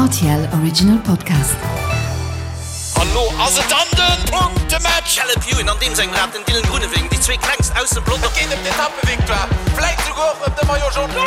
RTL Original Podcast. An lo ass et dann den Punktematch! Caleb Ewan an deem sengem Rad, den Dylan Groenewegen, déi zwee klengst aus dem Pelotong. Et geet ëm d'Etappevictoire, vläit souguer och ëm de Maillot Jaune.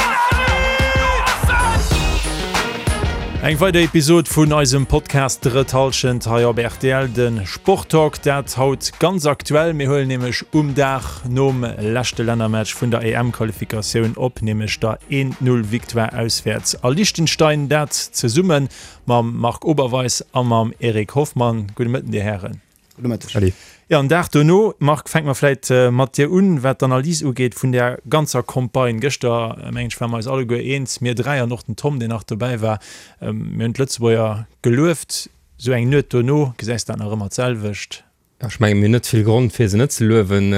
Eng weider Episod vun eisem Podcast Drëtt Hallschent hei op rtl, de Sporttalk. Dat haut ganz aktuell. Mir huelen nämlech um Dag nom leschte Lännermatch vun der EM-Qualifikatioun op, nämlech der 1-0 Victoire auswäerts a Liechtenstein. Dat zesumme mam Marc Oberweis a mam Eric Hoffmann. Gudde Mëtten, Dir Hären. Gudde Mëtteg. Salut. Jo, en Dag dono, Marc, fänke mer vläit mat dir un, wat d'Analys ugeet vun där ganzer Campagne. Gëschter, mengen ech, ware mer eis alleguer eens, mir dräi an och den Tom, deen nach dobäi war, mir hunn d'Lëtzebuerger gelueft. Esou eng Nuet dono, gesäis de dat nach ëmmer d'selwecht? Ech mengen, mir hunn net vill Grond, fir se net ze luewen.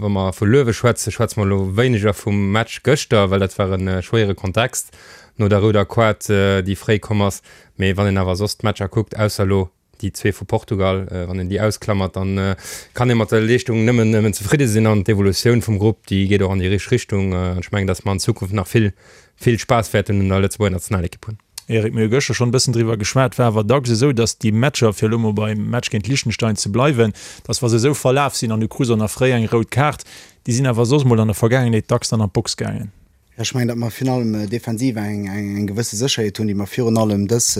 Wa mer vu Luewe schwätzen, schwätze mer elo wéineger vum Match gëschter, well dat war e schwéiere Kontext no der rouder Koart, déi fréi komm ass. Mee wann een awer soss d'Matcher kuckt, ausser elo déi zwee vu Portugal, wann een déi ausklammert, dann kann ee mat der Leeschtung nëmmen, nëmmen zefridde sinn. An d'Evolutioun vum Grupp, déi geet och an déi richteg Richtung. An ech mengen, datt mer an Zukunft nach vill, vill Spaass wäerten un der Lëtzebuerger Nationalekipp hunn. Eric, mir hu gëschter schonn e bëssen driwwer geschwat, war awer dacks esou, datt déi Matcher, fir elo mol beim Match géint Liechtenstein ze bleiwen, datt wa se esou verlaf sinn an du krus och nach fréi eng rout Kaart, déi sinn awer soss mol an der Vergaangenheet dacks dann an d'Box gaangen. Jo, ech mengen, datt mer virun allem defensiv eng eng gewësse Sécherheet hunn, déi mer virun allem dës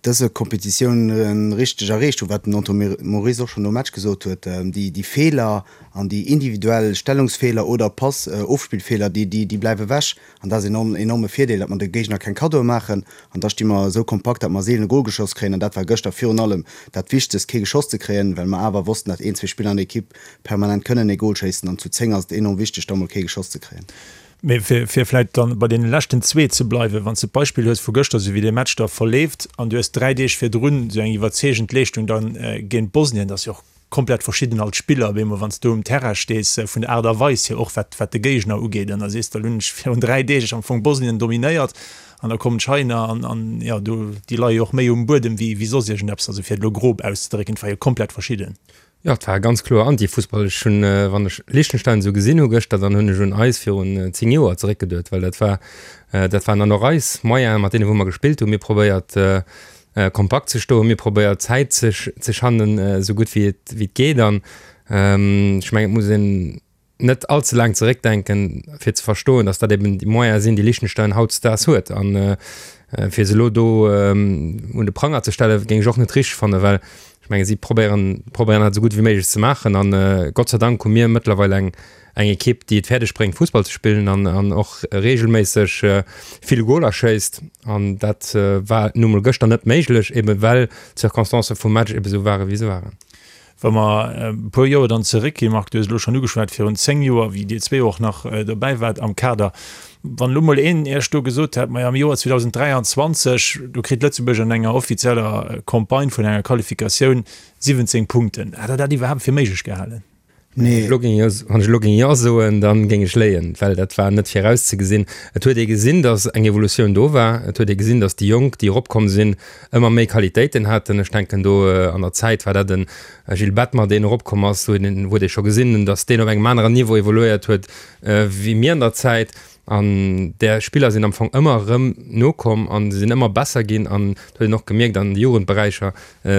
dëse Kompetitioun richteg erreecht hunn, wat den Antoine Moris och schonn nom Match gesot huet, déi déi Feeler an déi individuell Stellungsfeeler oder Pass Ofspillfeeler, déi déi bleiwe wech. An dat ass en enorme Virdeel, datt mer de Géigner keng Kaddoe maachen. An da sti mer esou kompakt, datt mer seelen e Gol geschoss kréien. An dat war gëschter virun allem dat Wichtegst, kee geschoss ze kréien, well mer awer wossten, datt een, zwee Spiller an der Ekipp permanent kënnen e Gol schéissen. An zu 10 ass et enorm wichteg, da mol kee geschoss ze kréien. Mee fir vläicht dann bei deene leschten zwee ze bleiwen, Wann s de d'Beispill hues vu gëschter, esou wéi dee Match da verleeft, an du hues 3 Deeg virdrun esou eng iwwerzeegend Leeschtung dann géint Bosnien, dat ass jo och komplett verschidden als Spiller op eemol wann s du um Terrain stees, vun der Aart a Weis hier och wat wat de Géigner ugeet an da sees de, elo hunn ech virun 3 Deeg am Fong Bosnien dominéiert an da kommen d'China an an jo do déi leie jo och méi um Buedem wéi wéi soss iergendeppes, also fir et elo grob auszedrécken, et war jo komplett verschidden. Jo, et war ganz kloer Anti-Fussball. Ech hunn, wann ech Liechtenstein esou gesinn hu gëschter, dann hunn ech un eis virun 10 Joer zeréckgeduet, well dat war dat waren dann och eis Moyenen, mat deene wou mer gespillt hunn. Mir probéiert kompakt ze stoen, mir probéiert Zäit ze ze schannen esou gutt wéi et wéi et geet an ech mengen et muss een net all ze laang zeréckdenken fir ze verstoen, datt dat eben déi Moyene sinn, déi Liechtenstein hautdesdaags huet an fir se elo do un de Pranger ze stellen, géing ech och net richteg fannen, well ech menge si probéieren probéieren dat esou gutt wéi méiglech ze maachen an Gott sei Dank hu mir mëttlerweil eng eng Ekipp, déi et fäerdeg bréngt Fussball ze spillen an an och reegelméisseg vill Goler schéisst. An dat war nu mol gëschter net méiglech, ebe well d'Circonstancë vum Match ebe sou ware wéi se waren. Wa mer e puer Joer dann zeréckginn, Marc, du hues elo schonn ugeschwat, virun 10 Joer, wéi Dir zwee och nach dobäi waart am Kader, wann elo mol een Iech do gesot hätt, majo am Joer 2023, do kritt Lëtzebuerg an enger offizieller Campagne vun enger Qualifikatioun 17 Punkten, hätt Der dat iwwerhaapt fir méiglech gehalen? Nee. Wann ech elo géing Jo soen, da géing ech léien, well dat war net virauszegesinn. Et huet ee gesinn, datt eng Evolutioun do war. Et huet ee gesinn, datt déi Jonk, déi eropkomm sinn, ëmmer méi Qualitéiten haten. Ech denken do an der Zäit war dat e Gilles Bettmer, deen eropkomm ass, wou huet ee scho gesinn, datt deen op engem aneren Niveau evoluéiert huet wéi mir an der Zäit. An där Spiller sinn am Fong ëmmer erëm nokomm a se sinn ëmmer besser ginn. An et huet een och gemierkt, an de Jugendberäicher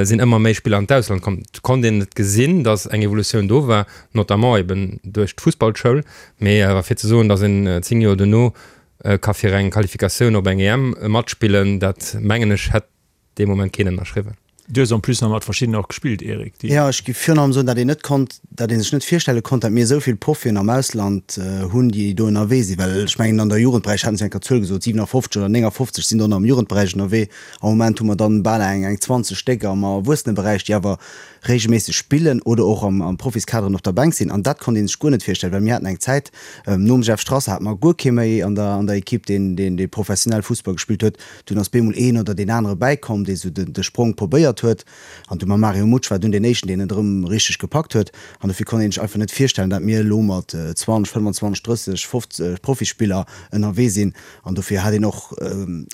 sinn ëmmer méi Spiller an d'Ausland komm. Et konnt een et gesinn, datt eng Evolutioun do war, notamment eben duerch d'Fussballschoul. Mee awer fir ze soen, datt een 10 Joer dono ka fir eng Qualifikatioun op eng EM matspillen, dat mengen ech hätt dee Moment keen ënnerschriwwen. Du hues en plus nach mat verschiddenen och gespillt, Eric, déi. Jo, ech géif virun allem soen, datt een net konnt, datt ee sech net virstelle konnt, datt mir esou vill Profien am Ausland hunn, déi do ënnerwee sinn. Well ech mengen, an der Jugendberäich haten se eng Kéier d'Zuel gesot, 57 oder 59 sinn do nach am Jugendberäich ënnerwee. Am Moment hu mer dann bal eng eng 20 Stéck am Erwuesseneberäich, déi awer reegelméisseg spillen oder och am am Profiskaderen op der Bänk sinn. An dat konnt ee sech guer net virstellen, well mir haten eng Zäit, nom Jeff Strasser hate mer guer kee méi an der an der Ekipp, deen deen dee professionell Fussball gespillt huet. Dunn ass bemol een oder deen anere bäikomm, dee sou de Sprong probéiert. verléiert huet. An du mam Mario Mutsch war dunn deen éischten, deen et erëm richteg gepackt huet. An dofir konnt een sech einfach net virstellen, dat mir elo mat 20, 25, 30, 50 Profispiller ënnerwee sinn. An dofir hat een och,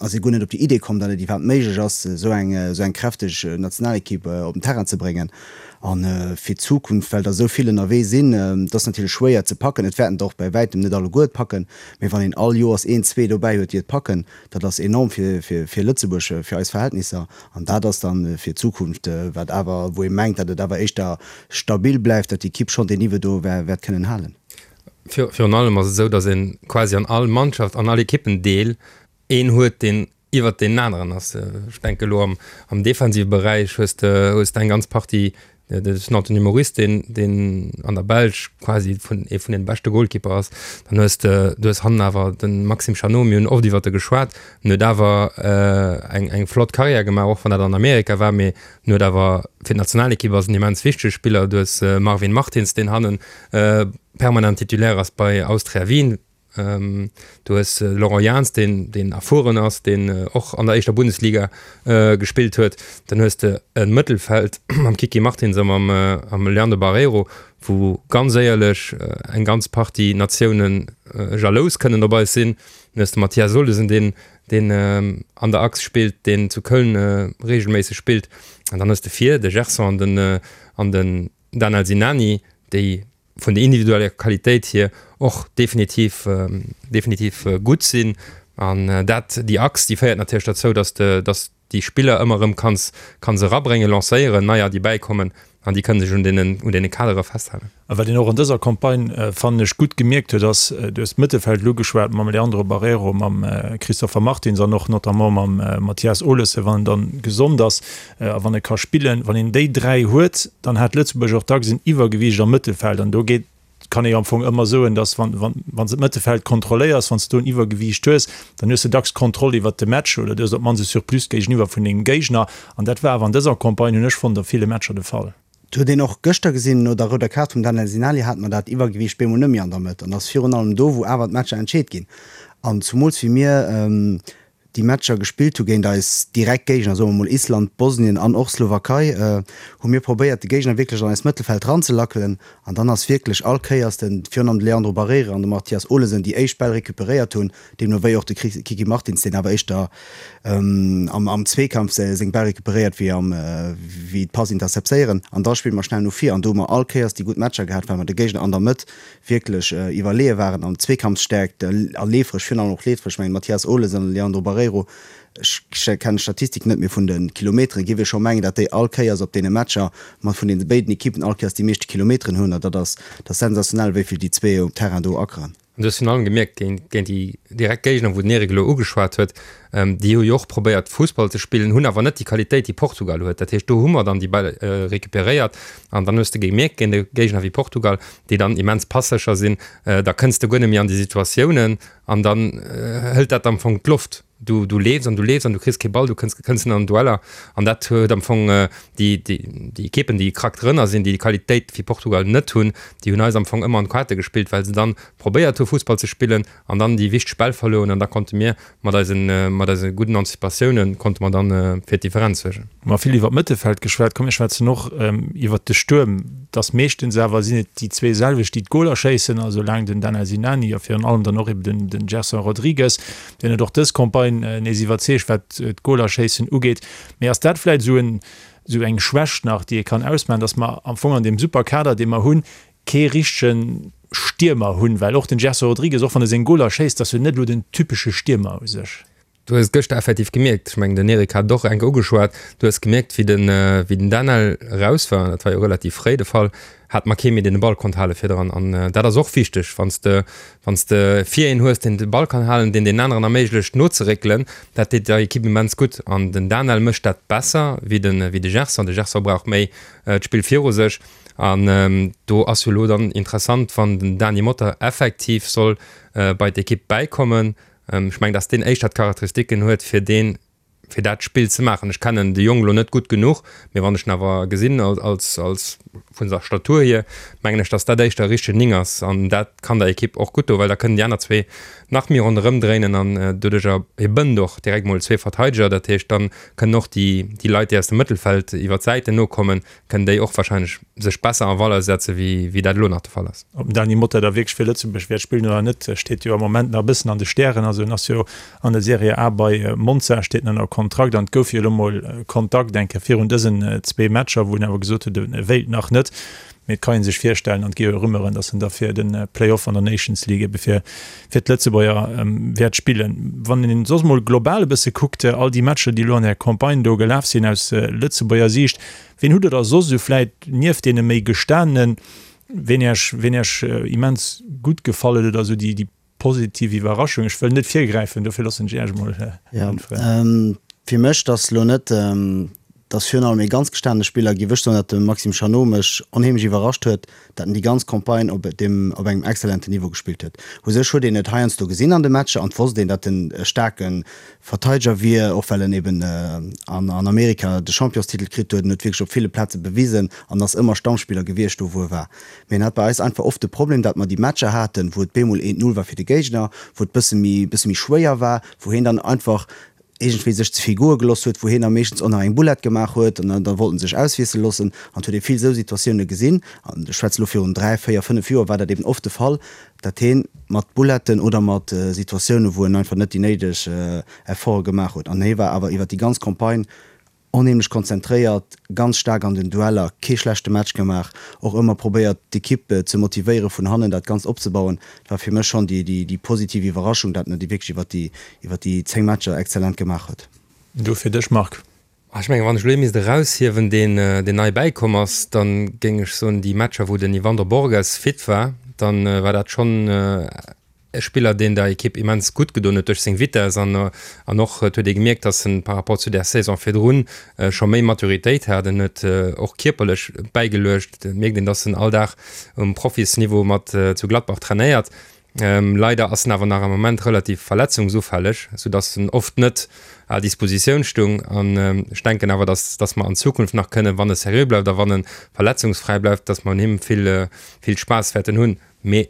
ass ee guer net op déi Idee komm, datt et iwwerhaapt méiglech ass, esou eng, esou eng kräfteg Nationalekipp op den Terrain ze bréngen. A fir d'Zukunft, well der esou vill ënnerwee sinn, et ass natierlech schwéier ze packen. Et wäerten der och bäi wäitem net alleguer et packen, mee wann een all Joers een, zwee dobäi huet, déi et packen, dat ass enorm fir, fir, fir Lëtzebuerg, fir eis Verhältnisser. An dat ass dann fir d'Zukunft, wat awer, wou ee mengt, datt et awer éischter stabil bleift, datt déi Ekipp schonn deen Niveau do wäert kënnen halen. Virun allem ass et esou, datt ee quasi an all Mannschaft, an all Ekippendeel een huet, deen iwwert deenen aneren ass. Ech denke elo am, am defensive Beräich hues de, hues de eng ganz Partie, dat ass den Anthony Moris, deen, deen an der Belsch quasi vun, ee vun den beschte Goalkeeper ass. Dann hues de, du hues hannen awer de Maxime Chanot, mir hunn oft iwwert e geschwat, en huet awer eng, eng flott Karriär gemaach, och wann dat an Amerika war, mee en huet awer fir d'Nationalekipp ass en immens wichtege Spiller. Du hues Marvin Martins, deen hannen permanent Titulaire ass bei Austria Wien. Du hues de Laurent Jans, deen, deen erfueren ass, deen och an der éischter Bundesliga gespillt huet. Dann hues de e Mëttelfeld mam Kiki Martins a mam, mam Leandro Barreiro, wou ganz éierlech eng ganz Partie Natioune jalous kënnen op eis sinn. Dann hues de Mathias Olesen, deen, deen an der Achs spillt, deen zu Köln reegelméisseg spillt. An dann hues de vir de Gerson an den, an den Danel Sinani, déi vun der individueller Qualitéit hier och definitiv, definitiv gutt sinn. An dat, déi Achs, déi féiert natierlech derzou, dass de, dass déi Spiller ëmmer erëm kanns, kanns erabréngen, lancéieren, neier, déi bäikommen an déi kënne sech un deenen, un deene Kadere festhalen. A wat een och an dëser Campagne, fannen ech, gutt gemierkt huet, ass, du hues d'Mëttelfeld elo ugeschwat mam Leandro Barreiro, mam Christopher Martins an och notamment mam Mathias Olesen, wann en dann gesond ass, A wann e ka spillen, wann een déi 3 huet, dann hat Lëtzebuerg och dacks en Iwwergewiicht am Mëttelfeld. An do geet, kann ee jo am Fong ëmmer soen, datt wann, wann, wann s de d'Mëttelfeld kontrolléiers, wann s de do en Iwwergewiicht hues, dann hues de dacks d'Kontroll iwwert de Match oder du hues op d'mannst e Surplus géigeniwwer vun dengem Géigner. An dat war awer an dëser Campagne, hunn ech fonnt, a ville Matcher de Fall. Et huet een och gëschter gesinn, no der rouder Kaart vum Daniel Sinali hate mer dat Iwwergewiicht bemol net méi an der Mëtt. An et ass virun allem do, wou awer d'Matcher entscheet ginn. An zumools wéi mir déi Matcher gespillt hu géint eis direkt Géigner, soe mer mol Island, Bosnien an och Slowakei, hu mir probéiert de Géigner wierklech an eist Mëttelfeld ranzelackelen an dann ass wierklech all Kéiers den, virun allem de Leandro Barreira an de Mathias Olesen déi éischt Bäll recuperéiert hunn, deemno wéi och de Kiki Martins, deen awer éischter am am Zweekampf seng Bäll recuperéiert wéi am wéi d'Pass interceptéieren an da spille mer schnell no vir an do hu mer all Kéiers déi gutt Matcher gehat, well mer de Géigner an der Mëtt wierklech iwwerleeë waren an Zweekampfsstäerkt a leefereg, virun allem och leefereg, ech mengen Mathias Olesen an Leandro Barreiro, ech kennen d'Statistik net, mee vun de Kilometeren géif ee scho mengen, datt déi all Kéiers op deene Matcher mat vun deene béiden Ekippen all Kéiers déi meeschte Kilometeren hunn an dat ass, dat ass sensationell, wéi vill déi zwee um Terrain do akeren. An du hues virun allem gemierkt, géint, géint déi direkt Géigner, wou den Eric elo ugeschwat huet, déi hu jo och probéiert Fussball ze spillen, hunn awer net déi Qualitéit, déi Portugal huet. Dat heescht, do hu mer dann déi Bäll recuperéiert an dann hues de gemierkt, géint e Géigner wéi Portugal, déi dann immens passécher sinn, da kënns de guer net méi an déi Situatiounen an dann hëlt dat am Fong d'Loft. Du, du leefs an du leefs an du kriss kee Ball, du kënns, kënns net an Dueller an dat huet am Fong déi, déi, déi Ekippen, déi krack drënner sinn, déi déi Qualitéit wéi Portugal net hunn, déi hunn eis am Fong ëmmer an d'Kaarte gespillt, well se dann probéiert hu Fussball ze spillen an dann déi wichteg Bäll verluer hunn an da konnte mir mat eisen, mat eise gudden Anticipatiounen konnte mer dann fir d'Differenz suergen. Mer vill iwwer d'Mëttelfeld geschwat, komm mir schwätzen och iwwert de Stuerm. Et ass meeschtens awer sinn et déi zwee selwecht, déi d'Goler schéissen, also laang den Dana Sinani a virun allem dann och eben den, den Gerson Rodrigues. Deen huet och dës Campagne nees iwwerzeegt, wat d'Golerschéissen ugeet. Mee ass dat vläicht esou en, esou eng Schwächt nach, déi ee kann ausmaachen, datt mer am Fong an deem super Kader, dee mer hunn, kee richtege Stiermer hunn? Well och den Gerson Rodrigues, och wann e seng Goler schéisst, ass jo net elo den typesche Stiermer u sech. Du hues et gëschter effektiv gemierkt, ech mengen den Eric hat et och enk ugeschwat, du hues gemierkt wéi den, wéi den Daniel eraus war, dat war jo relativ fréi de Fall, hat mer kee méi deen de Ball konnt hale virdran an dat ass och wichteg, wann s de wann s de vir een hues deen de Ball kann halen, deen den aneren erméiglecht nozeréckelen, dat deet der Ekipp immens gutt an den Daniel mécht dat besser wéi de wéi de Gerson. De Gerson brauch méi d'Spill viru sech an do ass jo elo dann interessant, wann den Dany Motta effektiv soll bei d'Ekipp bäikommen, ech mengen, datt deen éischter d'Charakteristiken huet fir deen. fir dat Spill ze maachen. Ech kennen de Jong elo net gutt genuch, mee wann ech en awer gesinn als, als vun der Statur hier, mengen ech, datt dat éischter e richtegen Ning ass an dat kann der Ekipp och gutt doen, well da kënnen déi aner zwee nach méi ronderëm dréinen an doduercher hie bënnt och direkt mol zwee Verteideger. Dat heescht, dann kënnen och déi, déi Leit, déi aus dem Mëttelfeld iwwer d'Säiten nokommen, kënnen déi och wahrscheinlech sech besser en Valeur setze wéi, wéi dat elo nach de Fall ass. Ob den Dany Motta da wierklech fir Lëtzebuerg wäert spillen oder net, steet jo am Moment nach e bëssen an de Stären. Also en ass jo an der Serie A bei Monza, steet en ënner Kontrakt an et gouf jo elo mol Kontakt eng Kéier virun dësen zwee Matcher, wou en awer gesot huet, e wéilt nach net. Mee et kann ee sech virstellen, an et gi jo Rumeuren, datt en da fir de Play-off an der Nations League ebe fir fir d'Lëtzebuerger wäert spillen. Wann een soss mol global e bësse kuckt, all déi Matcher, déi elo an där Campagne do gelaf sinn aus Lëtzebuerger Siicht, wien hutt Der da soss esou vläit nieft deene méi gestanenen, ween Iech, ween Iech immens gutt gefall huet oder esou déi, déi positiv Iwwerraschung? Ech wëll net virgräifen, dofir loossen ech Iech emol äntweren. Fir mech, dass elo net, dass virun allem ee ganz gestanene Spiller, géif ech soen, dat de Maxime Chanot mech onheemlech iwwerrascht huet, dat en déi ganz Campagne op deem, op engem exzellenten Niveau gespillt huet. U sech huet een et heiansdo gesinn an de Matcher an et wosst een, dat en e staarke Verteideger wier, och well en eben an an Amerika de Championstitel kritt huet. En huet wierklech op ville Plaze bewisen an ass ëmmer Stammspiller gewiescht do wou e war. Mee en hat bei eis einfach oft de Problem, dat mer déi Matcher haten, wou et bemol eent Null war fir de Géigner, wou et bësse méi, bësse méi schwéier war, wou hien dann einfach iergendwéi sech ze vill goe gelooss huet, wou hien da meeschtens och nach eng Boulette gemaach huet an da wollt en sech auswiessele loossen. An et huet ee vill esou Situatioune gesinn, an ech schwätze lo virun 3, 4, 5 Joer war dat eben oft de Fall, dat hien mat Bouletten oder mat Situatioune wou en einfach net déi néideg Efforte gemaach huet. An hie war awer iwwer déi ganz Campagne Onheemlech konzentréiert, ganz staark an den Dueller, kee schlechte Match gemaach, och ëmmer probéiert d'Ekipp ze motivéieren, vun hannen dat Ganzt opzebauen. Dat war fir mech schonn déi positiv Iwwerraschung, dat en et wierklech iwwer déi iwwer déi 10 Matcher exzellent gemaach huet. Du fir dech, Marc? Ech mengen, wann ech elo ee misst eraushiewen, deen deen nei bäikomm ass, da géing ech soen, déi Matcher wou den Yvandro Borges fit war, dann war dat schonn E Spiller deen der Ekipp immens gutt gedoen huet duerch seng Vitess an an och et huet ee gemierkt, datt en par rapport zu där Saison virdrun scho méi Maturitéit hat. En huet och kierperlech bäigeluecht. Et mierkt een, datt en all Dag um Profisniveau mat zu Gladbach trainéiert. Leider ass en awer nach am Moment relativ verletzungsufälleg, soudatt en oft net à Dispositioun stung. An ech denken awer, datt datt mer an Zukunft nach kënnen, wann e seriö bleift a wann e verletzungsfräi bleift, datt mer un him vill vill Spaass wäerten hunn. Mee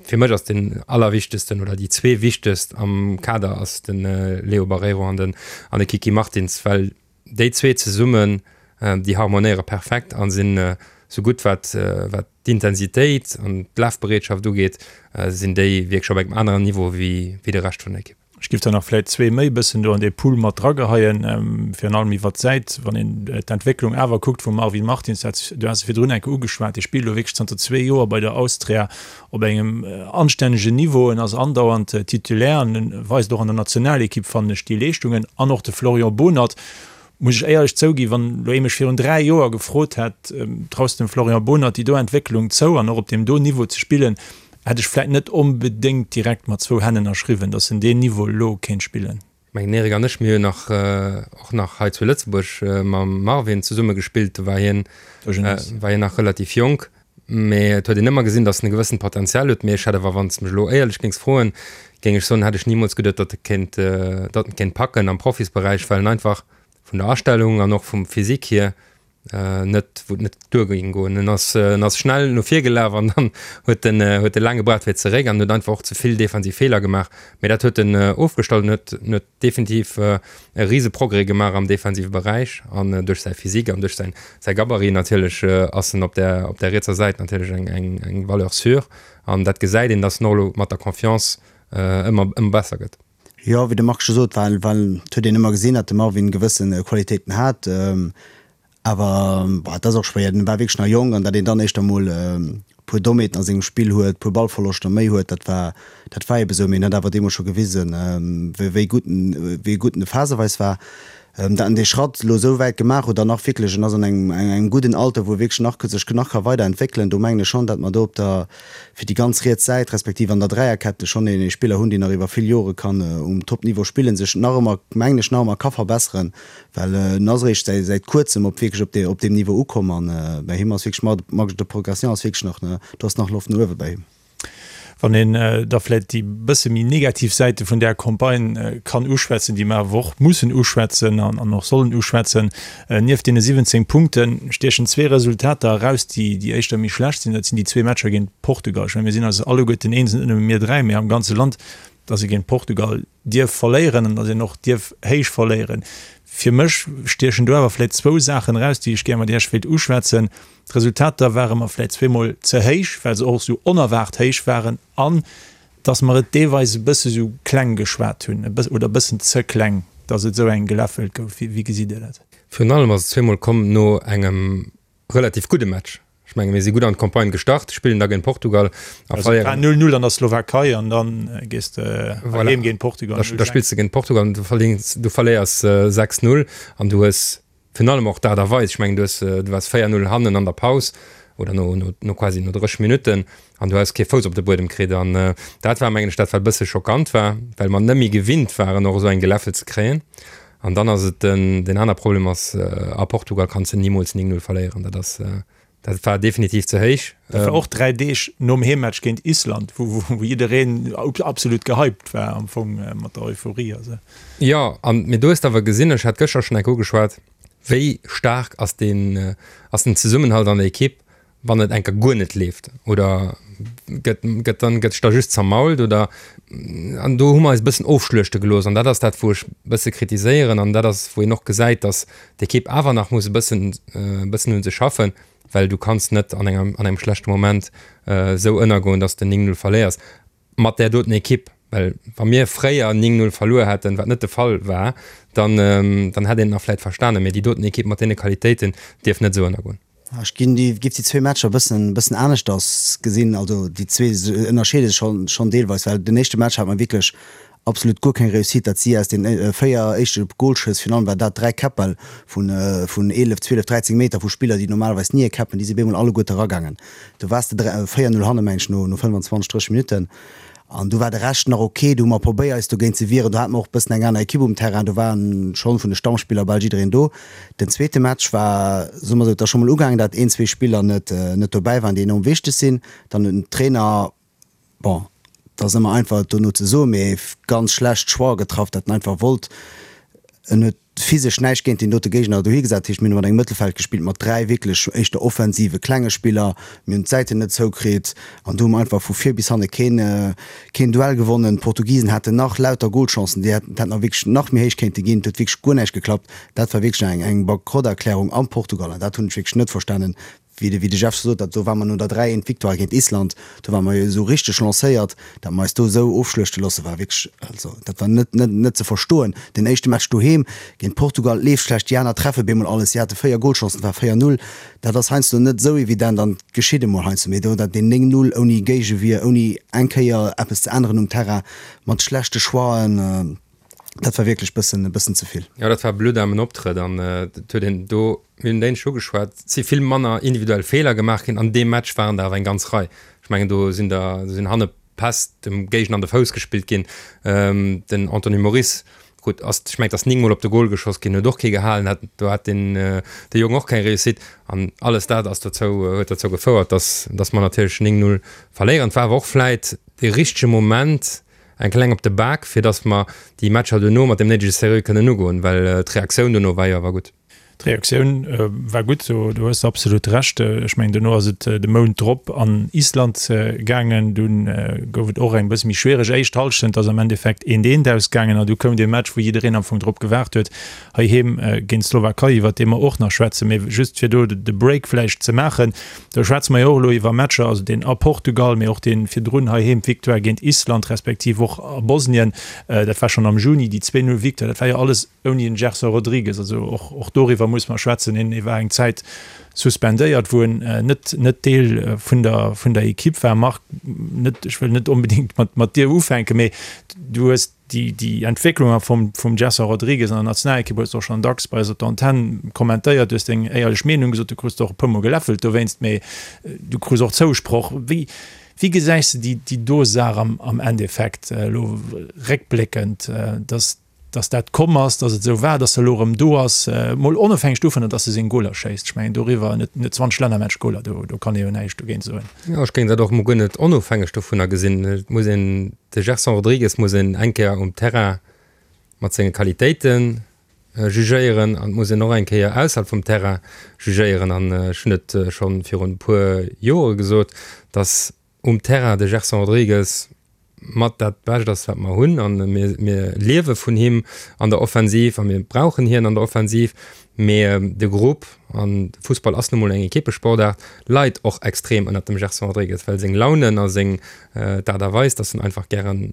Fir mech ass den allerwichtegsten oder déi zwee wichtegst am Kader ass de Leo Barreiro an den an de Kiki Martins, well déi zwee zesummen, déi harmonéiere perfekt a sinn esou gutt wat wat d'Intensitéit an d'Lafbereetschaft ugeet, sinn déi wierklech op engem aneren Niveau wéi wéi de Rescht vun der Ekipp. Ech giff der nach vläit zwee méi bëssen do an dee Pool mat drageheien, virun allem iwwert d'Säit, wann een d'Entwécklung awer kuckt vum Marvin Martins, dat, du has e virdrun eng Kéier ugeschwat, dee spillt elo wierklech zanter zwee Joer bei der Austria op engem anstännegen Niveau, en ass andauernd Titulaire an en weist och an der Nationalekipp, fannen ech, déi Leeschtungen. An och de Florian Bohnert, muss ech éierlech zouginn, wann elo ee mech virun 3 Joer gefrot hätt, traus de dem Florian Bohnert déi do Entwécklung zou an och op deem do Niveau ze spillen, hätt ech vläit net onbedéngt direkt mat zwou Hänn ënnerschriwwen, datt en deen Niveau elo kéint spillen. Ech mengen, den Eric an ech, mir hunn nach och nach hei zu Lëtzebuerg mam Marvin zesumme gespillt, do war hien, war hien nach relativ jonk. Mee et huet een ëmmer gesinn, datt en e gewëssent Potenzial huet. Mee ech hätt awer, wann s de mech elo éierlech géings froen, géing ech soen, hätt ech nimools geduet, datt e kéint, datt en kéint packen am Profisberäich, well en einfach vun der Astellung an och vum Physique hier net, wou et net duer géing goen. En ass, en ass schnell no vir gelaf an dann huet en, huet e laang gebraucht fir zeréck an huet einfach och ze vill defensiv Feeler gemaach. Mee dat huet en ofgestallt an huet, en huet definitiv e rise Progrès gemaach am defensive Beräich an duerch säi Physique an duerch säin säi Gabarit natierlech ass en op där op där rietser Säit natierlech eng eng eng Valeur sûre an dat gesäit een, datt en och elo mat der Confiance ëmmer ëmmer besser gëtt. Jo, wéi de Marc scho sot, well well et huet een ëmmer gesinn, datt de Marvin gewësse Qualitéiten hat. Awer bon, et ass och schwéier, en war wierklech nach jonk an datt een dann éischter mol e puer Dommheeten a sengem Spill huet, e puer Ballverloschter méi huet, dat war, dat war ebe sou. Mee en huet awer deemools scho gewisen, wéi gutt en, wéi gutt en phaseweis war. Dat en dee Schratt elo esou wäit gemaach huet an nach wierklech, en ass an engem, engem gudden Alter, wou e wierklech nach sech nach ka weiderentwéckelen, do mengen ech schonn, datt mer do op der, fir déi ganz riets Säit, respektiv an der Dräierkette schonn ee Spiller hunn, deen nach iwwer vill Jore kann um Topniveau spillen, sech nach ëmmer, mengen ech, nach ëmmer ka verbesseren. Well en ass eréischt säit kuerzem op wierklech op op deem Niveau ukomm an bei him ass wierklech Marge de progression ass wierklech nach, do ass nach Loft no uewe bei him. Wann een da vläicht déi bësse méi negativ Säite vun där Campagne kann uschwätzen, déi mer awer och mussen uschwätzen an och sollen uschwätzen, Nieft deene 17 Punkte stiechen zwee Resultater eraus, déi déi éischter méi schlecht sinn. Dat sinn déi zwee Matcher géint Portugal. Ech mengen, mir sinn eis alleguerten eens, net nëmme mir dräi, mee am ganze Land, datt ee géint Portugal dierf verléieren an datt een och dierf héich verléieren. Fir mech stiechen do awer vläicht zwou Saachen eraus, déi ech gär mat Iech wéilt uschwätzen. D'Resultater ware mer vläicht zweemol ze héich, well se och esou onerwaart héich waren an dass mer et deelweis e bësse sou kleng geschwat hunn, e bëssen, oder e bëssen ze kleng, dass et esou eng geläffelt gouf. Wéi, wéi gesitt Dir dat? Virun allem ass et zweemol komm no engem relativ gudde Match. Ech menge mir si gutt an d'Campagne gestart, spillen da géint Portugal a Also et war verléieren. 0, 0 an der Slowakei an da gees de Voilà. heem géint Portugal Da, 0, da 6. spills de géint Portugal an du verléiers, du verléiers 6, 0 an du hues Virun allem och d'Aart a Weis, ech mengen du hues, du waars 4, 0 hannen an der Paus oder no, no, no quasi no 30 Minutten an du hues kee Fouss op de Buedem kritt an dat war mengen ech dat wat e bësse schockant war, well mer net méi gewinnt waren och esou eng Geläffel ze kréien. An dann ass et den, deen aner Problem ass, a Portugal kanns de nimools 9, 0 verléieren, dat ass, Dat war definitiv ze héich. Dat war och 3 Deeg nom Heemmatch géint Island, wou jiddereen absolut gehypt war am Fong mat der Euphorie. Also. Jo, an mee do hues de awer gesinn, ech hat gëschter schonn enk ugeschwat, wéi staark ass deen, ass den Zesummenhalt an der Ekipp, wann et enker guer net leeft oder gëtt, gëtt dann, gëtt sech da just zermault oder an do hu mer eis e bëssen ofschluechte gelooss an dat ass dat, wou ech e bësse kritiséieren an dat ass, wou een och gesäit, datt d'Ekipp awer nach muss e bëssen e bëssen un sech schaffen, well du kanns net an engem an engem schlechte Moment esou ënnergoen, dass de 9, 0 verléiers mat där doten Ekipp. Well wa mir fréier 9, 0 verluer hätten, wat net de Fall war, dann dann hätt een et nach vläit verstanen, mee déi doten Ekipp mat deene Qualitéiten dierf net esou ënnergoen. Ech ginn déi, giff déi zwee Matcher e bëssen, bëssen aneschters gesinn. Also déi zwee ënnerscheede sech schonn, schonn deelweis, well den éischte Match hat mer wierklech absolut guer keng Réussite, dat si aus den 4 éischte Golschëss, virun allem war dat 3 Käppbäll vun, vun 11, 12, 13 Meter vu Spiller, déi normalerweis ni e käppen, déi si bemol alleguerte eragaangen. Do waars de 4, 0 hanne meng ech no, no 25, 30 Minutten. An du war de Rescht nach ok. Du hu mer probéiert eis dogéint ze wieren. Do hate mer och e bëssen eng aner Ekipp um Terrain. Do war schonn vun de Stammspiller bal jiddereen do. Den zweete Match war, soe mer esou, et ass scho mol ugaangen, dat een, zwee Spiller net net dobäi waren, déi enorm wichteg sinn. Dann huet den Trainer, bon, et ass ëmmer einfach et dono ze soen, mee ganz schlecht Choix getraff, dat en einfach wollt, en huet physesch näischt géint deen dote Géigner dohi gesat. Dat heescht, mir hunn mat engem Mëttelfeld gespillt mat 3 wierklech éischter offensive klenge Spiller. Mir hunn d'Säiten net zoukritt an do hu mer einfach vu vir bis hanne keen, keen Duell gewonnen. D'Portugisen haten nach lauter Golchancen, déi hätten nach wierklech nach méi héich kéinte ginn. Et huet wierklech guer näischt geklappt. Dat war wierklech eng, eng Bankrotterklärung am Portugal an dat hunn ech wierklech net verstanen, Wéi de, wéi de Jeff scho sot, dat do war mer no der 3, 1 Victoire géint Island, do ware mer jo esou richteg lancéiert, dat mer eis do esou ofschluechte loosse war wierklech, also dat war net, net, net ze verstoen. Den éischte Match doheem géint Portugal leeft schlecht, déi aner treffe bemol alles, si hate 4 Golchancen, et war 4, 0, dat ass heiansdo net esou evident an geschitt emol heiansdo, mee do dat deen 9, 0 ouni Géigewier, ouni eng Kéier eppes ze änneren um Terrain, mat schlechte Choixen. Dat war wierklech bëssen, e bëssen ze vill. Jo, dat war e blutdaarmen Optrëtt an et huet een do, mir hunn d'éinescht ugeschwat, et si vill manner individuell Feeler gemaach ginn. An deem Match waren der awer eng ganz Rei. Ech mengen, do sinn der, do sinn hanne Päss dem Géigner an de Fouss gespillt ginn. Den Anthony Moris, gutt, ass, ech mengen, et ass 9 Mol op de Gol geschoss ginn, huet och kee gehalen, hat, do hat den, de Jong och keng Réussite. An alles dat ass dozou, huet dozou gefouert, dass, dass mer natierlech 9, 0 verléieren. Et war awer och vläit dee richtege Moment, Eng kleng op de Bak, fir dass mer déi Matcher duerno mat dem néidege Sérieux kënnen ugoen, well d'Reaktioun dono war jo awer gutt. D'Reaktioun war gutt, do hues de absolut Recht. Ech mengen, dono ass et de Mount drop an Island gaangen. Dunn gouf et och eng bësse méi schwiereg éischt Hallschent, ass am Endeffekt eent eent ausgaangen an du koum dee Match, wou jiddereen am Fong drop gewaart huet, heiheem géint d'Slowakei, iwwert dee mer och nach schwätzen. Mee just fir do de Break vläicht ze maachen, Do schwätze mer jo och elo iwwer Matcher, also deen a Portugal, mee och dee virdrun heiheem, d'Victoire géint Island, respektiv och a Bosnien, dat war schonn am Juni, déi 2, 0 Victoire, dat war jo alles ouni den Gerson Rodrigues. Also och, och doriwwer muss mer schwätzen. Hien war eng Zäit suspendéiert, wou en net, net Deel vun der, vun der Ekipp war. Marc, net, ech wëll net onbedéngt mat, mat dir ufänken, mee du hues Déi, déi Entwécklung a vum, vum Gerson Rodrigues an der Nationalekipp hues de och schonn dacks bei eis op der Antenn kommentéiert. Du hues deng éierlech Meenung gesot, du krus der och e puermol geläffelt dowéinst, mee du krus och Zousproch. Wéi, wéi gesäis de déi, déi do Saach am, am Endeffekt elo réckbléckend, dass. Dass dat komm ass, dass et esou war, dass e elo erëm do ass, mol onofhängeg dovunner, dass e seng Goler schéisst. Ech mengen doriwwer, en huet 20 Lännermatch-Goler, do do kann ee jo näischt dogéint soen. Jo, ech géing dat och emol guer net onofhängeg dovunner gesinn. Et muss een, de Gerson Rodrigues muss een eng Kéier um Terrain mat senge Qualitéite jugéieren an et muss een och eng Kéier ausserhalb vum Terrain jugéieren. An ech hunn et scho virun e puer Jore gesot, dass um Terrain de Gerson Rodrigues mat dat Bescht ass, wat mer hunn an mir, mir liewe vun him an der Offensiv a mir brauchen hien an der Offensiv. Mee de Grupp, an de Fussball ass nu mol eng Equippesportaart, leit och extrem ënnert dem Gerson Rodrigues, well seng Launen a seng d'Aart a Weis, dass en einfach gären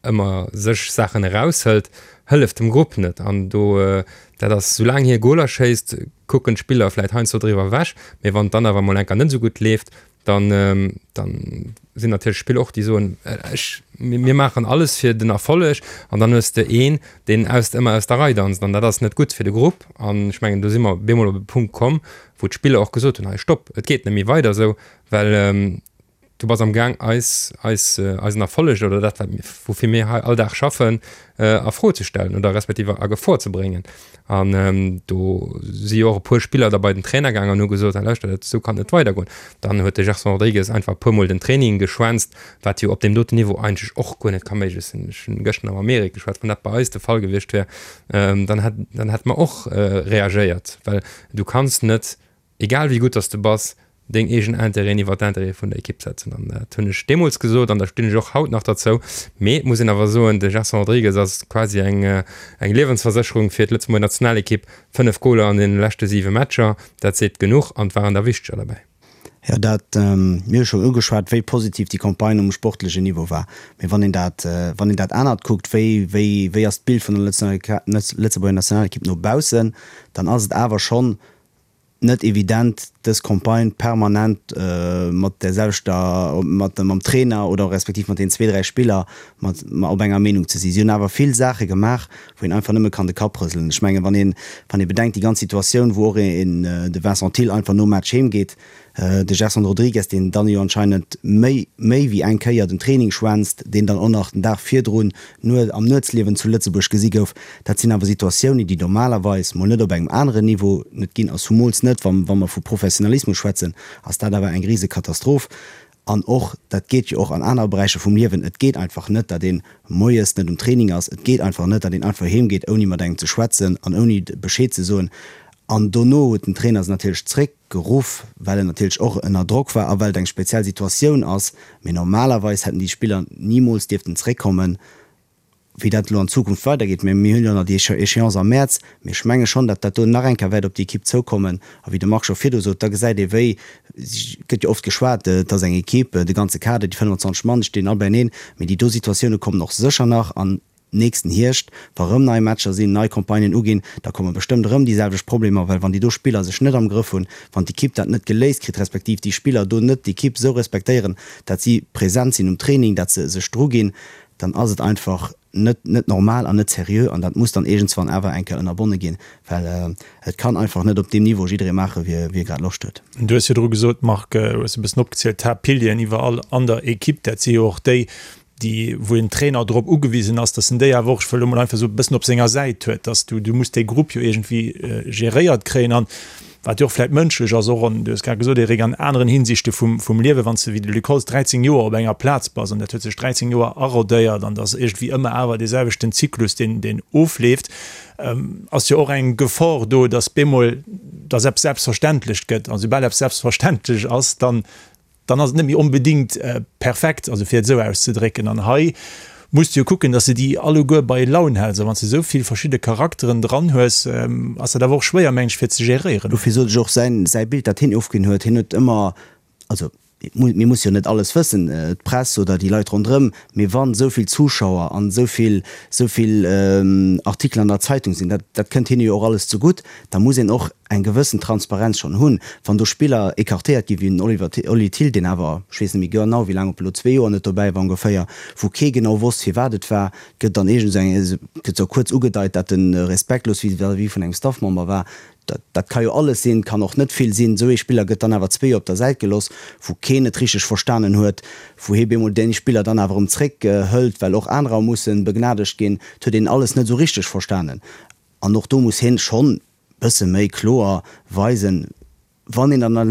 ëmmer sech Saachen eraushëlt, hëlleft dem Grupp net. An do, dat ass, soulaang hie Goler schéisst, kucken d'Spiller vläit heiansdo driwwer ewech, mee wann et dann awer mol eng Kéier net esou gutt leeft, dann dann sinn natierlech Spiller och, déi soen, ech, mir maachen alles fir den Erfolleg an dann hues de een, deen aus, ëmmer aus der Rei danzt an dat ass net gutt fir de Grupp. An ech mengen, do si mer bemol op e Punkt komm, wou d'Spiller och gesot hunn, hei stopp, et geet net méi weider esou, well du bass am Gaang eis, eis, eisen Erfolleg oder dat wat mir, woufir mir hei all Dag schaffen, a Fro ze stellen oder respektiv a Gefor ze bréngen. An do si jo och e puer Spiller da bei den Trainer gaangen an hu gesot, hei lauschtert, dat esou kann et net weidergoen. Dann huet de Gerson Rodrigues einfach e puermol den Training geschwänzt, wat jo op deem doten Niveau eigentlech och guer net ka méiglech sinn. Ech hunn gëschter nach mam Eric geschwat, wann dat bei eis de Fall gewiescht wär, dann hätt, dann hätte mer och reagéiert, well du kanns net egal wéi gutt dass de bass, deng eegen Intérêten iwwer d'Intérêtë vun der Ekipp setzen. An dat hunn ech deemools gesot an da stinn ech och haut nach derzou. Mee et muss een awer soen, de Gerson Rodrigues ass quasi eng eng Liewensversécherung fir d'Lëtzebuerger Nationalekipp. 5 Goler an deene leschte 7 Matcher, dat seet genuch an et waren der wichteger derbäi. Jo, dat, mir hu schonn ugeschwat, wéi positiv déi Campagne um sportlechen Niveau war. Mee wann een dat, wann een dat anert kuckt, wéi, wéi, wéi ass d'Bild vun der Lëtzebuerger Nationalekipp no baussen, dann ass et awer schonn net evident dës Campagne permanent mat där selwechter, mat mam Trainer oder respektiv mat deenen zwee, dräi Spiller mat op enger Meenung ze sinn. Si hunn awer vill Saache gemaach, wou een einfach nëmme kann de Kapp rëselen. Ech mengen, wann een, wann ee bedenkt déi ganz Situatioun, wou och een, de Vincent Thill einfach nom Match heem geet, De Gerson Rodrigues, deen dann jo anscheinend méi méi wéi eng Kéier den Training schwänzt, deen dann och nach den Dag virdrun am Nuetsliewen zu Lëtzebuerg gesi gouf, dat sinn awer Situatiounen, déi normalerweis mol net op engem aneren Niveau net ginn a zumools net, wa wa mer vu Professionalismus schwätzen, ass dat awer eng Risekatastroph. An och, dat geet jo och an anere Beräicher vum Liewen, et geet einfach net, datt ee moies net um Training ass, et geet einfach net, datt een einfach heem geet, ouni mat engem ze schwätzen an ouni Bescheed ze soen. An dono huet den Trainer se natierlech zréck. Geruff, well en natierlech och ënner Drock war a well et eng speziell Situatioun ass. Mee normalerweis hätten déi Spiller nimools dierften zréckkommen. Wéi dat elo an Zukunft weidergeet, mä mir hunn jo nach déi Échéance am Mäerz, mee ech menge schonn, datt dat do nach eng Kéier wäert op déi Ekipp zoukommen. A wéi de Marc scho virdu sot, da gesäit ee wéi, et gëtt jo oft geschwat, et ass eng Ekipp, de ganze Kader, déi 25 Mann, déi stinn all beieneen, mee déi do Situatioune kommen och sécher nach an Nächsten Hierscht, wa rëm nei Matcher sinn, nei Campagnen uginn, da komme bestëmmt erëm déi selwecht Problemer, well wann déi do Spiller sech net am Grëff hunn, wann d'Ekipp dat net geléist kritt, respektiv déi Spiller do net d'Ekipp esou respektéieren, dat si present sinn um Training, dat se sech druginn, dann ass et einfach net net normal an net seriö an dat muss dann iergendswann awer eng Kéier ënnerbonne ginn, well et kann einfach net op deem Niveau jidderee maache wéi e grad Loscht huet. Du hues virdru gesot, Marc, hues e bëssen opgezielt, d'Haaptpilieren iwwerall an der Ekipp, dat si jo och déi, déi wou en Trainer drop ugewisen ass, dass en déi awer och, ech wëll elo mol einfach esou e bëssen op senger Säit huet, dass du, du muss dee Grupp jo iergendwéi geréiert kréien an wat jo och vläicht mënschlech ass, och an, du hues grad gesot Eric, an aneren Hinsichte vum, vum Liewen, wann s de wéi de Luc Holtz 13 Joer op enger Plaz bass an dat huet sech 13 Joer arodéiert an et ass iergendwéi ëmmer awer dee selwechten Zyklus, deen, deen ofleeft, ass jo och eng Gefor do, dass bemol, dass eppes selbstverständlech gëtt a soubal eppes selbstverständlech ass, dann dann ass et net méi onbedéngt perfekt, also fir et esou auszedrécken. An hei muss de jo kucken, datt s de déi alleguer bei Laun häls. A wann s de esou vill verschidde Charakteren dran hues, ass dat awer och schwéier, meng ech, fir ze geréieren. Dofir sot ech och, säin, säi Bild, dat hien ofginn huet, hien huet ëmmer, also mir musse jo net alles wëssen, d'Press oder déi Leit ronderëm, mee wann esou vill Zuschauer an esou vill, esou vill Artikelen an der Zeitung sinn, dat, dat kënnt hinne jo och alles zegutt, da muss een och. eng gewëssen Transparenz schonn hunn, wann do Spiller écartéiert ginn, wéi den Oliver, Oli Thill, deen awer, ech weess net méi genau wéi laang, ob elo zwee Joer net dobäi war ongeféier, wou kee genau wosst firwat et war, gëtt dann iergend esou eng, gëtt esou kuerz ugedeit, dat en respektlos vis-à-vis vun engem Staffmember war. Dat, dat ka jo alles sinn, kann och net vill sinn. Esou ee Spiller gëtt dann awer zwee Joer op der Säit gelooss, wou keen et richteg verstanen huet, wou hee bemol dee Spiller dann awer erëm zréck hëlt, well och anerer mussen begnadegt ginn. Et huet een alles net esou richteg verstanen. An och do muss hien schonn bësse méi kloer weisen, wann een an wann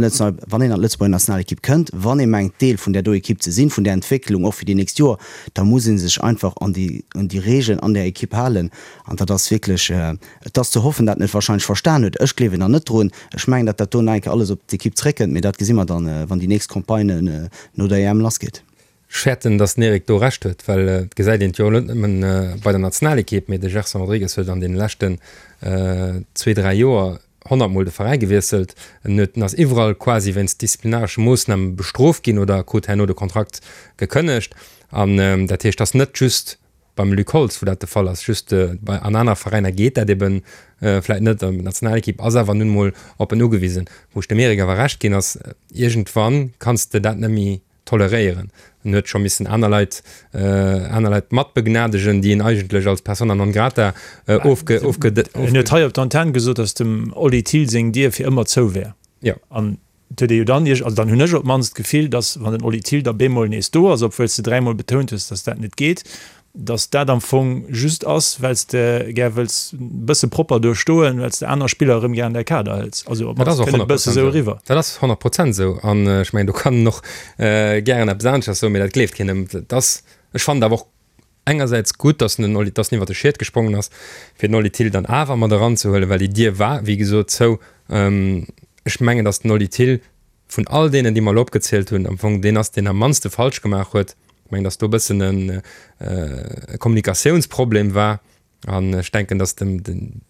een an d'Lëtzebuerger Nationalekipp kënnt, wann ee mengt Deel vun där do Ekipp ze sinn, vun där Entwécklung och fir déi nächst Joer, da muss ee sech einfach an déi un déi Regeln an där Ekipp halen. An dat ass wierklech, et ass ze hoffen, dat en et wahrscheinlech verstan huet. Ech gleewen nach net drun. Ech mengen, datt dat do nach eng Kéier alles op d'Ekipp zréckkënnt, mee dat gesi mer dann, wann déi nächst Campagne no der EM lassgeet. Ech fäerten, datt den Eric do Recht huet, well et gesäit een et jo net nëmmen bei der Nationalekipp, mee de Gerson Rodrigues huet an deene leschten zwee, dräi Joer honnertmol de Veräi gewiesselt. En huet, en ass iwwerall quasi wéinst disziplinaresche Moossname bestrooft ginn oder krut herno de Kontrakt gekënnegt. An dat heescht, et ass net just beim Luc Holtz, wou dat de Fall ass, just bei an aner Veräiner geet dat ebe vläit net. An d'Nationalekipp ass awer nun emol op en ugewisen. Wou ech dem Eric awer Recht ginn, ass, iergendwann kanns de dat net méi toleréieren. En huet scho missen aner Leit, aner Leit mat begnadegen, déi en eigentlech als persona non grata ofge, ofge, En huet hei op der Antenn gesot, datt dem Oli Thill seng Dier fir ëmmer zou wär. Jo. An et huet ee jo dann, also dann hunn ech op d'mannst d'Gefill, datt wann den Oli Thill da bemol nees do ass, obwuel s de dräimol betount hues, datt dat net geet, dass dat am Fong just ass, well s de gär wëlls e bësse propper do stoen, well s de aner Spiller erëm gär an däi Kader hëls. Also op d'mannst kënnt et e bësse sou eriwwer. Dat ass 100 Prozent esou. An ech mengen, do kann en och gären eppes aneschters soen, mee dat gleeft keen ëm. Dat ass, ech fannen et awer och engersäits gutt, dass den Oli, dass en iwwer de Schiet gesprongen ass, fir den Oli Thill dann awer mat eranzehuelen, well déi Dier war, wéi gesot, zou. Ech mengen, dass den Oli Thill vun all deenen, déi mer elo opgezielt hunn, am Fong deen ass, deen am mannste falsch gemaach huet. Ech mengen, datt do e bëssen e Kommunikatiounsproblem war. An ech denken, datt dem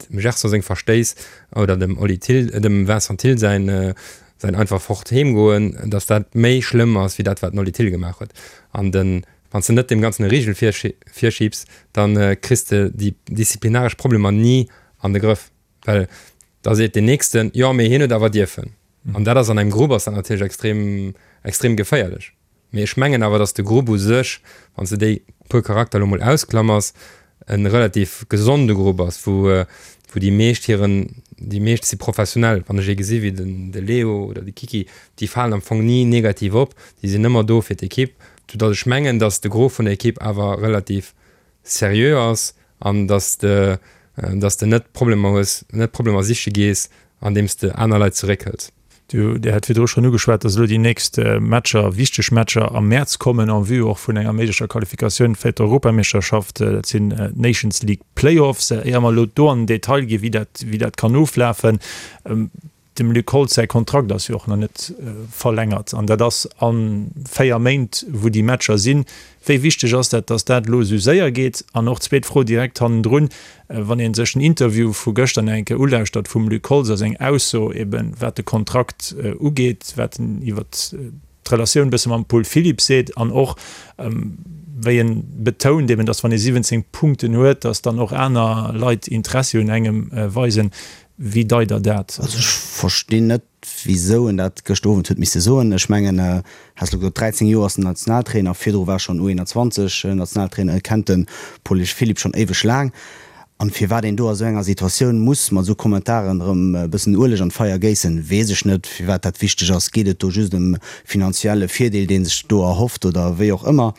Gerson seng Verstéiss oder dem Oli Thill, dem Vincent Thill säin, säin einfach fort heem goen, datt dat méi schlëmm ass wéi dat, wat den Oli Thill gemaach huet. An den, wann s de net deem Ganzen e Rigel virschibs, da kriss de déi disziplinaresch Problemer ni an de Grëff. Well da seet deen Nächsten, jo, mee hien huet awer dierfen. An dat ass an engem Grupp ass dat natierlech extrem, extrem geféierlech. Mee ech mengen awer, datt de Grupp u sech, wann s de déi puer Charakter elo mol ausklamers, e relativ gesonde Grupp ass, wou, wou déi meescht hiren, déi meescht si professionell. Wann ech ee gesi wéi den, de Leo oder de Kiki, déi falen am Fong ni negativ op, déi sinn ëmmer do fir d'Ekipp. Soudatt ech mengen, datt de Gros vun der Ekipp awer relativ seriö ass an dass de dass de net Problemer hues, net Problemer siche gees, andeems de aner Leit zeréckhëls. Du, Dir hat virdru schonn ugeschwat, dass elo déi nächst Matcher, wichteg Matcher am Mäerz kommen, en vue och vun enger méiglecher Qualifikatioun fir d'Europameeschterschaft. Dat sinn d'Nations League Playoffs. Éier mer elo do an den Detail ginn, wéi dat, wéi dat kann oflafen, Dem Luc Holtz säi Kontrakt ass jo och nach net verlängert an dat ass a 4 Méint, wou déi Matcher sinn. Wéi wichteg ass dat, datt dat elo esou séier geet? An och zweet Fro direkt hannendrun, Wann ee sech den Interview vu gëschter nach eng Kéier ulauschtert vum Luc Holtz a seng Ausso eben, wat de Kontrakt ugeet, wat en iwwer d'Relatioun e bësse mam Paul Philipp seet an och wéi en betount eben, datt wann ee 17 Punkten huet, datt dann och aner Leit Interessi un engem weisen. Wéi deit Der dat? Also ech verstinn net, wisou en dat gëschter Owend huet misse soen. Ech mengen, has elo gesot, 13 Joer ass en Nationaltrainer, virdru war schonn U21 Nationaltrainer, e kennt de Paul Philipp schonn éiweg laang. An firwat een do a sou enger Situatioun muss mat esou Kommentaren erëm e bëssen Ueleg an d'Feier géissen, weess ech net. Firwat dat wichteg ass, geet et do just ëm finanzielle Virdeel, dee sech do erhofft oder wéi och ëmmer.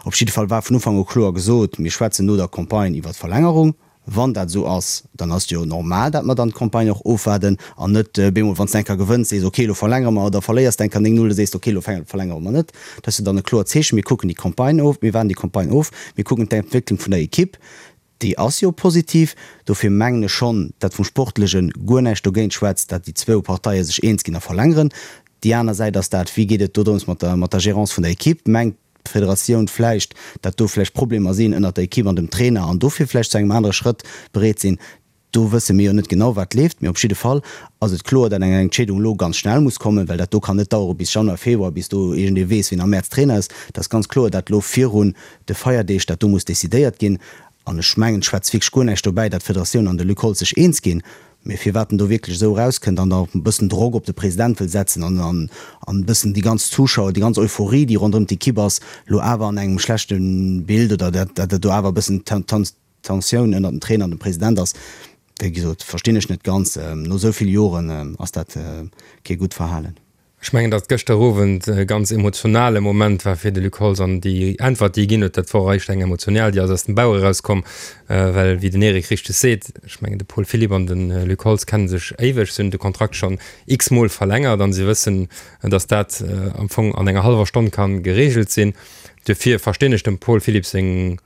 Op jidde Fall war vun Ufank u kloer gesot, mir schwätzen no der Campagne iwwer d'Verlängerung. Wann dat esou ass, dann ass et jo normal, dat mer dann d'Campagne och ofwaarden an net bemol, wann s de eng Kéier gewënns, sees, ok, elo verlängere mer, oder verléiers de eng Kéier 9, 0, da sees de, ok, elo verlängere mer net. Dat ass jo dann e kloert Zeechen, mir kucken déi Campagne of, mir waarden déi Campagne of, mir kucken d'Entwécklung vun der Ekipp, déi ass jo positiv. Dofir mengen ech schonn, dat vum Sportleche guer näischt dogéint schwätzt, dat déi zwou Parteie sech eens ginn a verlängeren. Déi aner Säit ass dat, wéi geet et do drëms mat der, mat der Gérance vun der Ekipp? Mengt d'Federatioun vläicht, dat do vläicht Problemer sinn ënnert der Ekipp an dem Trainer an dofir vläicht zu engem anere Schrëtt bereet sinn. Do wësse mir jo net genau, wat leeft. Mee op jidde Fall ass et kloer, dat eng Entscheedung elo ganz schnell muss kommen, well dat do kann net dauere bis Januar, Februar, bis do iergendee weess, wien am Mäerz Trainer ass. Et ass ganz kloer, dat elo virun de Feierdeeg dat do muss decidéiert ginn. An ech mengen, et schwätzt wierklech guer näischt dobäi, dat d'Federatioun an de Luc Holtz sech eens ginn. Mee firwat en do wierklech esou erauskënnt an da e bëssen Drock op de President wëll setzen an an e bëssen déi ganz Zuschauer, déi ganz Euphorie, déi ronderëm d'Ekipp ass, elo awer an engem schlechte Bild oder dat dat do awer e bëssen Tensioun ënnert dem Trainer an dem President ass, wéi gesot, verstinn ech net ganz. No esou vill Joren ass dat kee gutt Verhalen. Ech mengen, datt gëschter Owend e ganz emotionale Moment war fir de Luc Holtz an déi Äntwert, déi e ginn huet, dat wor eréischt eng emotional, déi ass aus dem Bauch erauskomm, well, wéi den Eric richteg seet, ech mengen, de Paul Philipp an de Luc Holtz kenne sech éiweg, se hunn de Kontrakt schonn x-mol verlängert an se wëssen, datt dat am Fong an enger hallwer Stonn ka gereegelt sinn. Duerfir verstinn ech dem Paul Philipp seng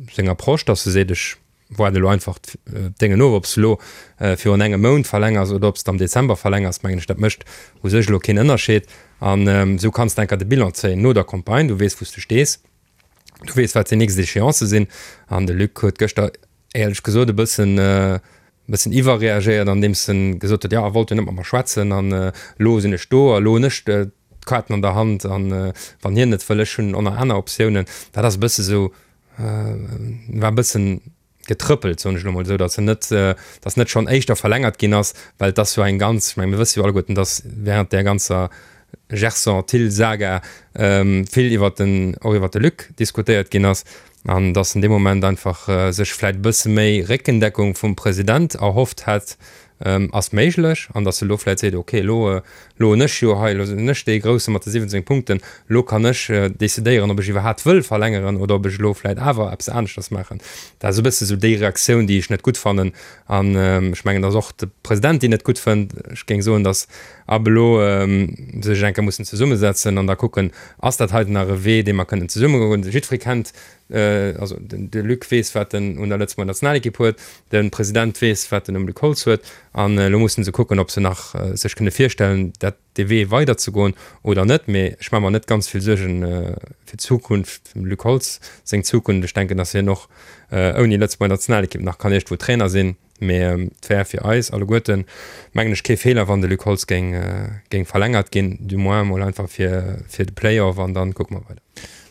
seng Approche, datt e seet, ech Waarde elo einfach d'Déngen of, ob s de elo virun engem Mount verlängers oder ob s de am Dezember verlängers, mengen ech, dat mécht u sech elo keen Ënnerscheed. An esou kanns de enker de Bilan zéien no der Campagne. Du weess, wou s de stees, du weess, wat déi nächst Échéancë sinn. An de Luc huet gëschter éierlech gesot e bëssen, e bëssen iwwerreagéiert, andeems en gesot huet, jo, e wollt jo net mat mer schwätzen an elo sinn ech do a elo hunn ech d'Kaarten an der Hand an wann hien net wëll, ech hunn och nach aner Optiounen. Dat ass e bësse sou war e bëssen getrëppelt, soen ech elo mol esou, datt se net, datt net schonn éischter verlängert ginn ass, well et ass jo eng ganz, ech menge mir wësse jo alleguerten, datt während där ganzer Gerson-Thill-Saga vill iwwert den, och iwwert de Luc diskutéiert ginn ass an datt en dee Moment einfach sech vläicht e bësse méi Réckendeckung vum President erhofft hätt, Ass méiglech, an datt se elo vläit seet, ok, elo, elo hunn ech jo hei, elo sinn ech dee Grousse mat de 17 Punkten, elo kann ech decidéieren, ob ech iwwerhaapt wëll verlängeren oder ob ech elo vläit awer eppes aneschters maachen. Dat ass e bësse sou déi Reaktioun, déi ech net gutt fannen. An ech mengen, datt och de President déi net gutt fënnt. Ech géing soen, datt ab elo se sech eng Kéier mussen zesummesetzen an da kucken, ass dat heiten nach e Wee, dee mer kënnen zesumme goen. Jiddweree kennt Also de Luc weess, wat en un der Lëtzebuerger Nationalekipp huet, de President weess, wat en um Luc Holtz huet, an elo musse se kucken, ob se nach sech kënne virstellen, dat dee Wee weiderzegoen oder net. Mee ech maache mer net ganz vill Suergen fir d'Zukunft, dem Luc Holtz seng Zukunft. Ech denken, datt hien och ouni Lëtzebuerger Nationalekipp nach kann iergendwou Trainer sinn. Mee et wär fir eis alleguerten, mengen ech, kee Feeler, wann de Luc Holtz géing, géing verlängert ginn, du moins emol einfach fir, fir de Play-off an dann kucke mer weider.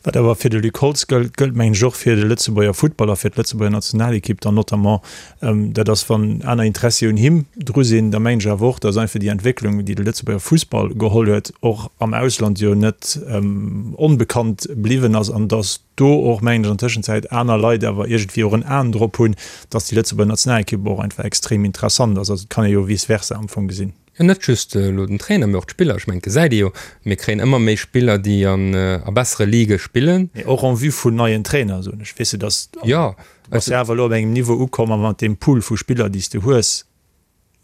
Wat awer fir de Luc Holtz gëllt, gëllt mengen ech och fir de Lëtzebuerger Futtball a fir d'Lëtzebuerger Nationalekipp dann notamment. Dat ass, wann aner Interessi un him dru sinn, da mengen ech awer och, datt einfach déi Entwécklung, déi de Lëtzebuerger Fussball geholl huet, och am Ausland jo net onbekannt bliwwen ass an datt do och, mengen ech, an Tëschenzäit aner Leit awer iergendwéi och en Aen drop hunn, datt déi Lëtzebuerger Nationalekipp och einfach extrem interessant ass. Also et kann ee jo vice versa am Fong gesinn. Jo, net just elo den Trainer, mee och d'Spiller. Ech mengen, et gesäit ee jo, mir kréien ëmmer méi Spiller, déi an a bessere Ligë spillen. Mee och en vue vun neien Trainer, soen ech. Weess de, dass, Jo, du bass jo awer elo op engem Niveau ukomm a mat deem Pool vu Spiller, déi s de hues.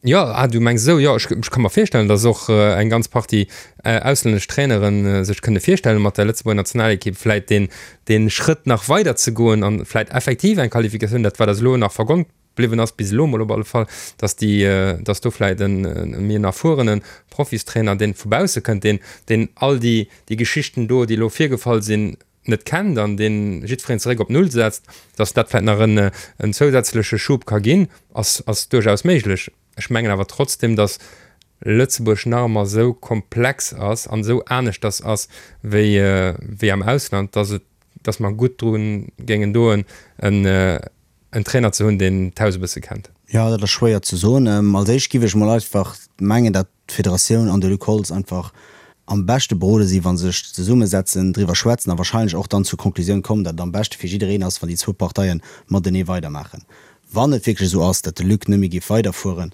Jo, ah, du mengs esou. Jo, ech, ech ka mer virstellen, dass och eng ganz Partie auslännesch Trainere sech kënne virstellen, mat der Lëtzebuerger Nationalekipp vläit deen, dee Schrëtt nach weider ze goen an vläit effektiv eng Qualifikatioun, dat wat eis elo nach vergonnt bliwwen ass, bis elo mol op alle Fall, dass déi, dass do vläit en méi en erfuerene Profistrainer, deen vu bausse kënnt, deen, deen all déi, déi Geschichten do, déi elo virgefall sinn, net kennt an deen jiddwereen zeréck op Null setzt, dass dat vläit nach en, en zousätzleche Schub ka ginn, ass, ass duerchaus méiglech. Ech mengen awer trotzdem, dass Lëtzebuerg nach ëmmer esou komplex ass an esou aneschters ass wéi, wéi am Ausland, dass et, dass mer gutt dru géingen doen, en, en Trainer ze hunn, deen d'Haus e bësse kennt. Jo, dat ass schwéier ze soen. Als éischt giff ech mol einfach mengen, dat d'Federatioun an de Luc Holtz einfach am beschte berode si wa se sech zesummesetzen, driwwer schwätzen a wahrscheinlech och dann zur Konklusioun kommen, dat et am beschte fir jiddereen ass, wann déi zwou Parteie matenee weidermaachen. Wann et wierklech esou ass, dat de Luc net méi géif weiderfueren,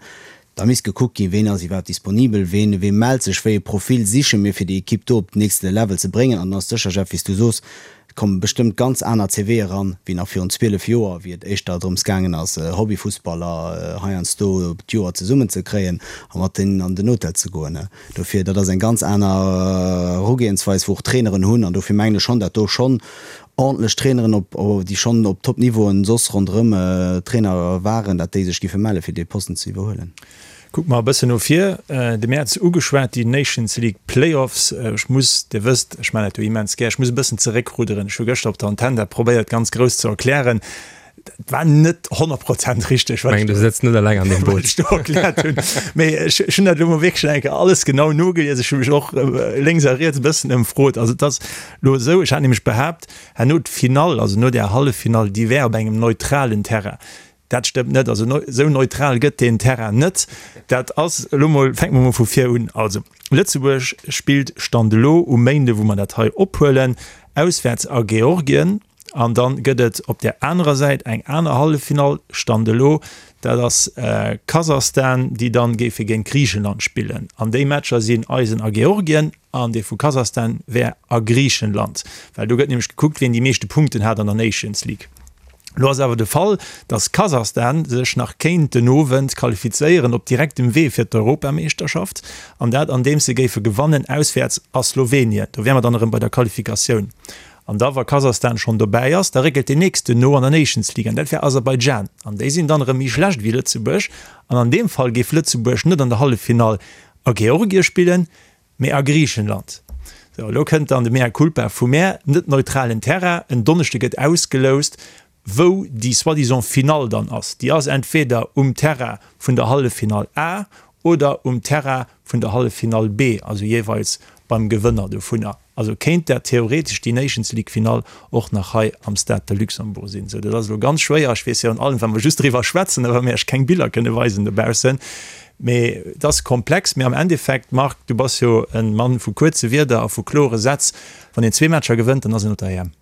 da misst gekuckt ginn, ween ass iwwerhaapt disponibel, ween, wee mellt sech, wéi e Profil siche mir, fir déi Ekipp do op den nächste Level ze bréngen. An dann ass sécher, Jeff, wéi s du soos, et komme bestëmmt ganz aner CVe eran, wéi nach virun 12 Joer, wéi et éischter drëms gaangen ass, Hobbyfussballer heiansdo d'Joer zesummen ze kréien a mat deenen an den Hotel ze goen. Dofir, dat ass eng ganz aner Erugehensweis, wou och d'Traineren hunn. An dofir mengen ech schonn, dat do schonn ordentlech Traineren, op, déi schonn op Top-Niveauen soss ronderëm Trainer waren, dat déi sech giffe melle fir dee Posten ze iwwerhuelen. Kucke mer e bëssen no vir. De Mäerz ugeschwat, déi Nations League Playoffs. Ech muss, Dir wësst, ech maachen dat jo immens gär, ech muss e bëssen zeréckrudderen. Ech hu gëschter op der Antenn dat probéiert ganz grouss ze erklären. Dat war net 100 Prozent richteg, wat ech do, wat ech do erkläert hunn. Mee ech, ech hunn dat elo mol wierklech eng Kéier alles genau nogelies. Ech hu mech och lénks a riets e bëssen ëmfrot. Also et ass elo esou, ech hat nämlech behaapt, herno d'Finall, also no där Halleffinall, déi wär op engem neutralen Terrain. Dat stëmmt net. Also esou neutral gëtt deen Terrain net. Dat ass elo mol, fänke mer mol vu vir un. Also Lëtzebuerg spillt Stand elo um Méinde, wou mer dat hei ophuelen, auswäerts a Georgien. An dann gëtt et op där anerer Säit eng aner Halleffinall, Stand elo, dat ass Kasachstan, déi dann géife géint Griichenland spillen. An déi Matcher sinn eisen a Georgien an dee vu Kasachstan wär a Griichenland, well do gëtt nämlech gekuckt, wien déi meeschte Punkten hat an der Nations League. Elo ass awer de Fall, datt Kasachstan sech nach kéint den Owend qualifizéieren op direktem Wee fir d'Europameeschterschaft, an dat andeems se géife gewannen auswäerts a Slowenien. Do wäre mer dann erëm bei der Qualifikatioun. An da wa Kasachstan schonn dobäi ass, da réckelt deen nächsten no an der Nations League, an dat wär Aserbaidschan. An déi sinn dann erëm méi schlecht wéi Lëtzebuerg. An an deem Fall géif Lëtzebuerg net an der Halleffinall a Georgie spillen, mee a Griichenland. Sou, elo kënnt dann de Mea culpa vu mär, net neutralen Terrain, en Donneschde gëtt ausgeloust, wou déi soi-disant Finall dann ass. Déi ass entweder um Terrain vun der Halleffinall A oder um Terrain vun der Halleffinall B, also jeeweils beim Gewënner dovunner. Also kéint dat theoretesch déi Nations League Finall och nach hei am Stade de Luxembourg sinn. Sou, dat ass elo ganz schwéier. Ech weess virun allem, wa mer just driwwer schwätzen a wa mir iech keng Biller kënne weisen dobaussen. Mee et ass komplex. Mee am Endeffekt, Marc, du bass jo e Mann vu kuerze Wierder a vu klore Sätz, wann een zwee Matcher gewënnt, dann ass een op der EM.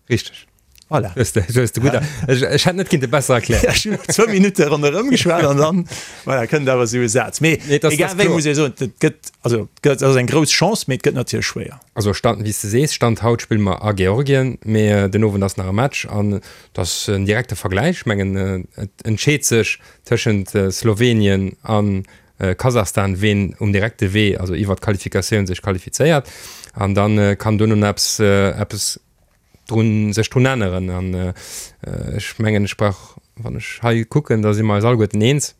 Richteg. Voilà. Hues de, hues de gutt, ech, ech hätt net kinnte besser erklären. Ech hunn zwou Minutte ronderëm geschwat an dann, voilà, kënnt awer esou e Saz. Mee Nee, das, egal wéi, muss ee soen, et gëtt, also et gëtt, ass eng grouss Chance, mee et gëtt natierlech schwéier. Also Stand, wéi s de sees, Stand haut spille mer a Georgien, mee den Owend ass nach e Match an et ass en direkte Vergläich. Ech mengen, et entscheet sech tëschent Slowenien a Kasachstan, ween um direkte Wee, also iwwer d'Qualifikatioun sech qualifizéiert. An da kann duerno nach eppes, eppes drun, sech drun änneren. An ech mengen, ech brauch, wann ech hei kucken, da si mer eis alleguerten eens,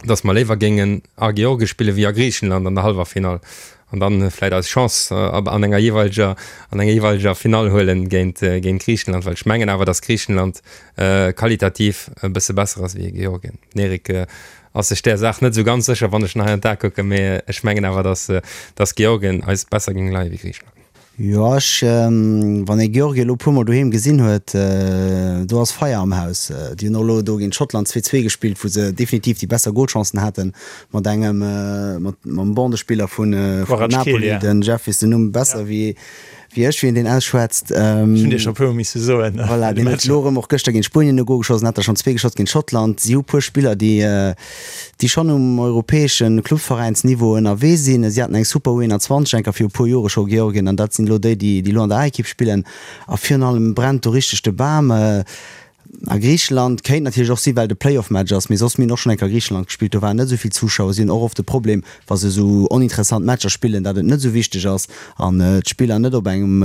datt mer léiwer géingen a Georgie spille wéi a Griichenland an der hallwer Finall an dann vläit eis Chance an enger jeeweileger, an enger jeeweileger Finall huelen géint, géint Griichenland, well ech mengen awer, datt Griichenland qualitativ e bësse besser ass wéi Georgien. Den Eric ass sech där Saach net esou ganz sécher, wann ech en hei an d'A kucken, mee ech mengen awer, datt, datt Georgien eis besser géing leie wéi Griichenland. Jo, ech, wann ee Georgien elo e puer mol doheem gesinn huet, do ass Feier am Haus. Déi hunn och elo do géint Schottland 2, 2 gespillt, wou se definitiv déi besser Golchancen haten, mat engem, mat mam Bandespiller vun Napoli, den Jeff weess den Numm besser wéi wéi ech, wéi een deen ausschwätzt. Ech hunn dir scho e puer mol misse soen. Voilà, deen huet elo erëm och gëschter géint Spuenien e Gol geschoss an hat der schonn zwee geschoss géint Schottland. Si hu puer Spiller, déi déi schonn um europäesche Clubveräinsniveau ënnerwee sinn. Si haten eng super U21 enker viru puer Jore scho, Georgien, an dat sinn elo déi, déi elo an der A-Ekipp spillen. A virun allem brennt do richteg de Bam. A Griicheland kéint natierlech och sinn, well et e Playoff-Match ass, mee soss, mir hunn och schonn eng Kéier Griicheland gespillt, do waren net esou vill Zuschauer. Si hunn och oft de Problem, wa se esou oninteressant Matcher spillen, datt et net esou wichteg ass an d'Spiller net op engem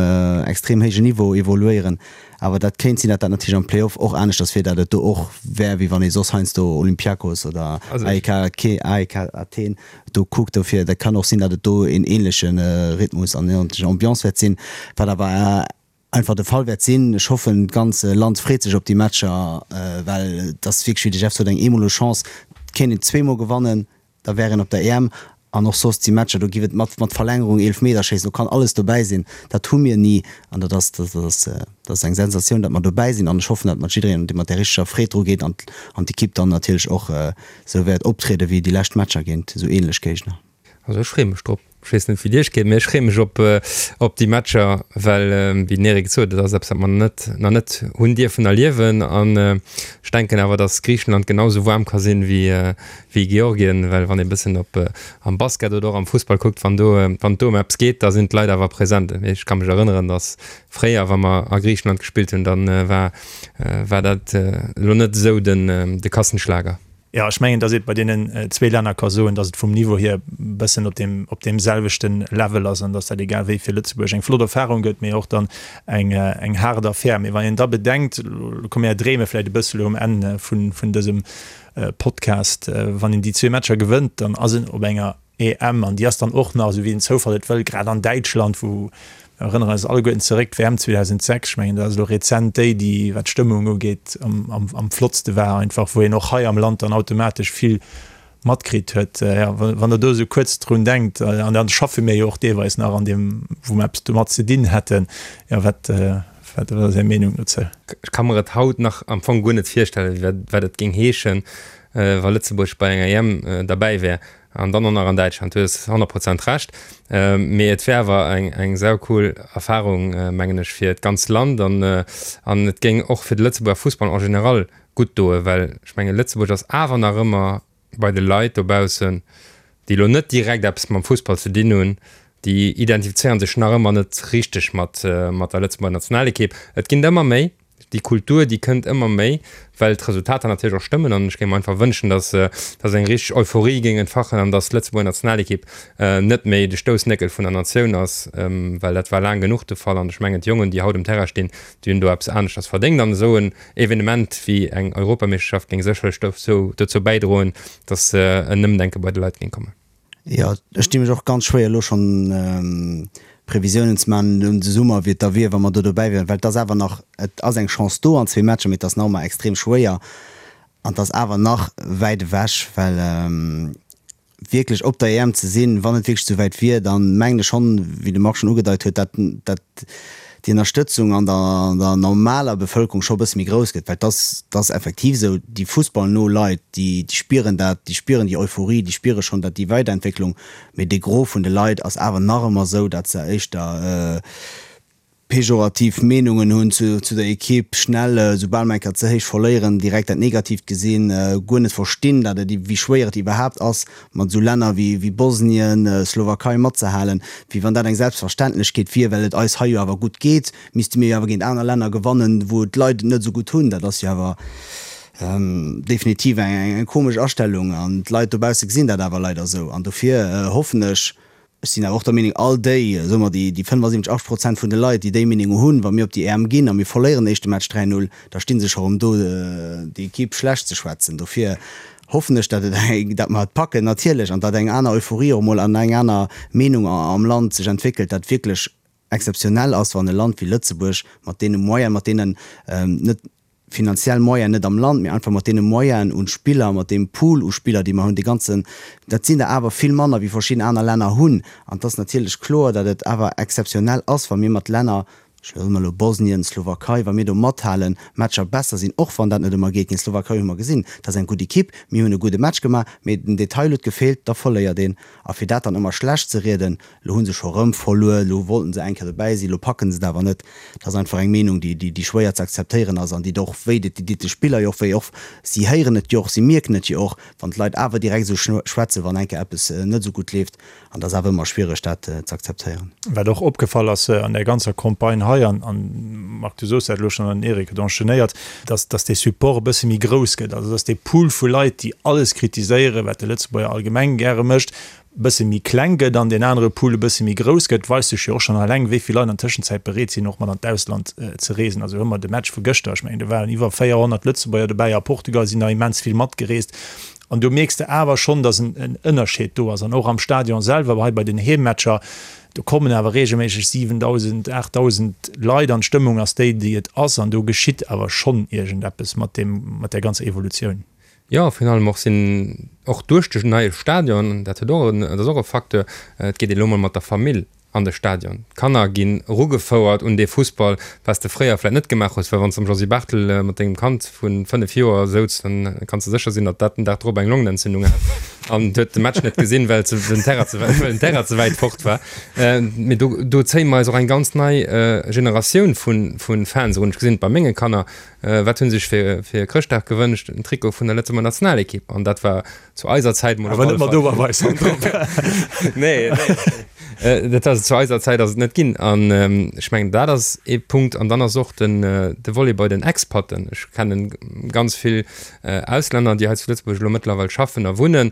extrem héijen Niveau evoluéieren. Awer dat kéint sinn, datt dat natierlech am Play-off och aneschters wier, datt et do och wär, wéi wann ee soss heiansdo Olympiakos oder AEK AEK Athen do kuckt. Dofir, dat kann och sinn, datt et do een ähnleche Rhythmus an ähnlech Ambiance wäert sinn, wat awer einfach de Fall wäert sinn. Ech hoffen, d'ganz Land freet sech op déi Matcher, well et ass wierklech, wéi de Jeff sot, eng eemoleg Chance. Et kéint een zweemol gewannen. Da wär een op der EM. An och soss déi Matcher, do giff et mat mat Verlängerung, Eelefmeterschéissen, do kann alles dobäi sinn. Dat hu mir ni. An dat ass, dat ass, dat ass eng Sensatioun, datt mer dobäi sinn. An ech hoffen, datt mat jiddereen, dee mat där richteger Freed dru geet an an d'Ekipp dann natierlech och esou wäert optriede wéi déi lescht Matcher géint esou ähnlech Géigner. Also ech freeë mech drop. Ech weess net wéi et iech geet, mee ech freeë mech op op déi Matcher, well wéi den Eric et sot, et ass eppes wat mer net nach net hunn dierfen erliewen an ech denken awer, datt Griichenland genau esou waarm ka sinn wéi wéi Georgien, well wann ee bëssen op am Basket oder och am Fussball kuckt, wann do wann et do ëm eppes geet, da sinn d'Leit awer present. Ech ka mech erënneren, datt fréier wa mer a Griichenland gespillt hunn, dann war war dat elo net esou den de Kassenschlager. Jo, ech mengen, datt ee bei deenen zwee Länner ka soen, datt et vum Niveau hier e bëssen op deem, op deem selwechte Level ass an datt dat egal wéi fir Lëtzebuerg eng flott Erfahrung gëtt, mee och dann eng, eng haart Affär. Mee wann een da bedenkt, elo komme mir dreeme vläicht e bësse elo um Enn vun, vun dësem Podcast, wann een déi zwee Matcher gewënnt, dann ass een op enger EM, an déi ass dann och nach, esou wéi den Zoufall et wëll, grad an Däitschland, wou, mir erënneren eis alleguerten zeréck, d'WM 2006, ech mengen, dat ass elo rezent déi, déi, wat d'Stëmmung ugeet, am, am, am flottste war einfach, wou een och hei am Land dann automatesch vill matkritt huet. Jo, wann Der do esou kuerz drun denkt, an dann schaffe mir jo och deelweis nach an deem, wou mer eppes domat ze dinn hätten, jo, wat. Wat ass Är Meenung dozou? Ech ka mer et haut nach am Fong guer net virstellen, wat et géing heeschen, wa Lëtzebuerg bei enger EM derbäi wär an dann och nach an Däitschland. Du hues 100 Prozent Recht. Mee et wär awer eng saucool Erfarung, mengen ech, fir d'ganz Land an et géing och fir de Lëtzebuerger Fussball en général gutt doen, well ech mengen, Lëtzebuerg ass awer nach ëmmer bei de Leit dobaussen, déi elo net direkt eppes mam Fussball ze dinn hunn, déi identifizéiere sech nach ëmmer net richteg mat mat der Lëtzebuerger Nationalekipp. Et ginn der ëmmer méi, déi Kultur, déi kënnt ëmmer méi, well d'Resultater natierlech och stëmmen. An ech géing mer einfach wënschen, datt datt eng richteg Euphorie géing entfachen an datt d'Lëtzebuerger Nationalekipp net méi de Stoussnéckel vun der Natioun ass, well dat war laang genuch de Fall. An ech mengen, d'Jongen, déi haut um Terrain stinn, déi hunn do eppes aneschters verdéngt. An esou en Evenement wéi eng Europameeschterschaft géing sécherlech dozou dozou bäidroen, datt en Ëmdenke bei de Leit géing kommen. Jo, ech di mech och ganz schwéier elo schonn Previsiounen ze maachen un de Summer, wéi et da wier, wa mer do dobäi wieren, well et ass awer nach, et ass eng Chance do an zwee Matcher, mee et ass nach ëmmer extrem schwéier an et ass awer nach wäit ewech, well wierklech op der EM ze sinn, wann et wierklech esou wäit wier, dann mengen ech schonn, wéi de Marc schonn ugedeit huet, dat dat déi Ënnerstëtzung an der an der normaler Bevëlkerung scho e bësse méi grouss gëtt, well et ass et ass effektiv esou, déi fussballno Leit, déi déi spieren dat, déi spieren déi Euphorie, déi spiere schonn dat déi Weiderentwécklung, mee de Gros vun de Leit ass awer nach ëmmer esou, dat se éischter pejorativ Meenungen hunn zu der Ekipp, schnell, soubal mer eng Kéier ze héich verléieren, direkt dat Negatiivt gesinn, guer net verstinn, dat et, wéi schwéier et iwwerhaapt ass, mat esou Länner wéi Bosnien, Slowakei matzehalen, wéi wann dat eng Selbstverständlechkeet wier, well et eis hei jo awer gutt geet, misste mir jo awer géint aner Länner gewannen, wou d'Leit et net esou gutt hunn. Dat ass jo awer definitiv eng komesch Astellung an d'Leit dobausse gesinn dat awer leider esou. An dofir hoffen ech, Ech sinn awer och der Meenung, all déi, soe mer déi 75, 80 Prozent vun de Leit, déi déi Meenung hunn, wa mir op déi EM ginn a mir verléieren den éischte Match 3, 0, da sti se scho rëm do, déi Ekipp schlecht ze schwätzen. Dofir hoffen ech, datt et, datt mer et packen natierlech an datt eng aner Euphorie och emol an eng aner Meenung am Land sech entwéckelt, dat wierklech exzeptionell ass, wann e Land wéi Lëtzebuerg mat deene Moyenen, mat deenen net, finanziell Moyen net am Land, mee einfach mat deene Moyenen un Spiller, mat deem Pool u Spiller, déi mer hunn, dee ganzen, dat sinn der awer vill manner wéi verschidden aner Länner hunn. An et ass natierlech kloer, datt et awer exzeptionell ass, wa mir mat Länner, ech soe mer elo Bosnien, Slowakei, wa mir do mathalen, Matcher besser sinn, och wann dat net ëmmer geet. Géint d'Slowakei hu mer gesinn, dat ass eng gutt Ekipp, mir hunn e gudde Match gemaach, mee den Detail huet gefeelt, da verléiert een. A fir dat dann ëmmer schlecht ze rieden, Lo hu se scho rëm verluer, lo wollten se eng Kéier dobäi sinn, lo packen se et awer net. Dat ass einfach eng Meenung, déi, déi schwéier ze akzeptéieren ass an déi och wéi deet, déi deet de Spiller jo och wéi. Och si héieren et jo och, si mierken et jo och, wann d'Leit awer direkt esou schwätzen, wann eng Kéier eppes net esou gutt leeft. An dat ass awer ëmmer schwiereg, dat ze akzeptéieren. Wat och opgefall ass an där ganzer Campagne hei, an, Marc, du soos dat elo schonn an den Eric huet enchaînéiert, dass, dass dee Support e bësse méi grouss gëtt, also dass dee Pool vu Leit, déi alles kritiséieren, wat de Lëtzebuerger allgemeng gäre mécht, bësse méi kleng gëtt an deen anere Pool e bësse méi grouss gëtt, weist sech jo och schonn eleng, wéi vill Leit an Tëschenzäit bereet sinn, och mat an d'Ausland ze reesen. Also hu mer de Match vu gëschter, ech mengen, do waren iwwer 400 Lëtzebuerger dobäi, a Portugal sinn der immens vill matgereest. An do mierks de awer schonn, datt en Ënnerscheed do ass. An och am Stadion selwer, hei bei den Heemmatcher, do kommen awer reegelméisseg 7.000, 8.000 Leit an d'Stëmmung ass déi, déi et ass. An do geschitt awer schonn iergendeppes mat deem, mat där ganzer Evolutioun. Jo, virun allem och sinn och duerch de neie Stadion, dat huet och en, dat ass och e Facteur, et geet een elo mol mat der Famill an de Stadion. D'Kanner ginn erugefouert un dee Fussball, wat s de fréier vläicht net gemaach hues, well wann s de am Josy Barthel mat dengem Kand vu 5 Joer souz, dann kanns de sécher sinn, datt dat den Dag drop eng Longenentzündung hat an huet de Match net gesinn, well den Terrain ze, well den Terrain ze wäit fort war. Mee do, do zéie mer eis och eng ganz nei Generatioun vu, vu Fans erun. Ech gesinn et bei menge Kanner, Wat hunn se sech fir fir Chrëschtdag gewënscht? En Trikot vun der Lëtzebuerger Nationalekipp. An dat war zu eiser Zäit mol op alle Fall. Awer net mat Oberweis drop. Nee, nee. Dat ass zu eiser Zäit ass et net ginn. An ech mengen dat ass ee Punkt. An dann ass och den de Volet bei den Expaten. Ech kennen ganz vill Auslänner, déi hei zu Lëtzebuerg elo mëttlerweil schaffen a wunnen.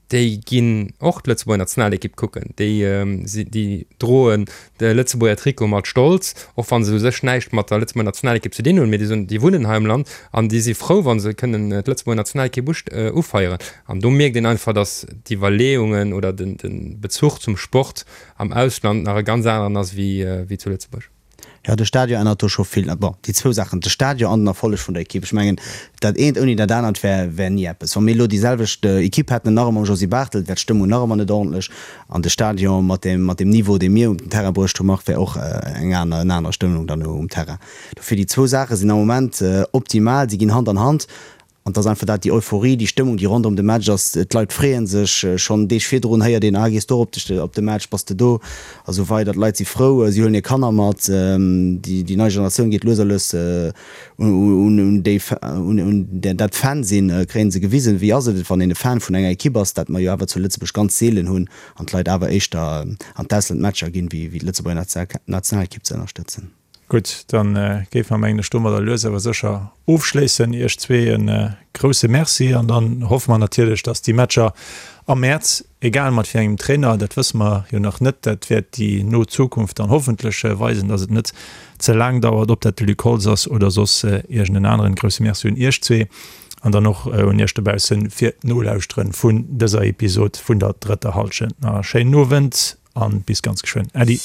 Déi ginn och d'Lëtzebuerger Nationalekipp kucken. Déi déi droen de Lëtzebuerger Trikot mat Stolz, och wa se u sech näischt mat der Lëtzebuerger Nationalekipp ze dinn hunn. Mee déi soen, déi wunnen hei am Land an déi si frou, wa se kënnen d'Lëtzebuerger Nationalekipp ufeieren. An do mierkt een einfach, datt d'Iwwerleeungen oder de Bezuch zum Sport am Ausland nach e ganz aneren ass wéi zu Lëtzebuerg. Jo, de Stadion ännert do scho vill. Bon, déi zwou Saachen, de Stadion an den Erfolleg vun der Ekipp. Ech mengen, dat eent ouni dat anert wär, wär ni eppes. Wa mir elo déi selwecht Ekipp hätten, nach ëmmer mam Josy Barthel, wär d'Stëmmung nach ëmmer net ordentlech. An de Stadion mat deem, mat deem Niveau, dee mir um den Terrain bruecht hu, Marc, wär och eng aner, en aner Stëmmung dann um Terrain. Dofir, déi zwou Saache sinn am Moment optimal, si ginn Hand an Hand. An et ass einfach dat, déi Euphorie, déi Stëmmung, déi ronderëm de Match ass, d'Leit freeë sech. Schonn Deeg virdrun héiert een, ah, gees du och op de Match, bass de do? A sou weider. D'Leit si frou, si huelen hir Kanner mat, déi nei Generatioun geet lues a lues un déi, un dat Fan sinn, kréie se gewisen, wéi ass et, wann een e Fan vun enger Ekipp ass, dat mer jo awer zu Lëtzebuerg ganz seelen hunn an d'Leit awer éischter an d'Ausland Matcher ginn, wéi d'Lëtzebuerger Nationalekipp ze ënnerstëtzen. Gutt, dann géife mer, mengen ech, domadder lues awer sécher ofschléissen. Iech zwee e grouse Merci an dann hoffe mer natierlech, dass déi Matcher am Mäerz, egal mat wéi engem Trainer, dat wësse mer jo nach net, dat wäert déi no Zukunft dann hoffentlech weisen, dass et net ze laang dauert, ob dat de Luc Holtz ass oder soss iergend en aneren. Grouse Merci un Iech zwee an dann och un Iech dobausse fir d'Nolauschteren vun dëser Episod vun der drëtter Hallschent. Nach e schéinen Owend. An bis ganz geschwënn. Äddi.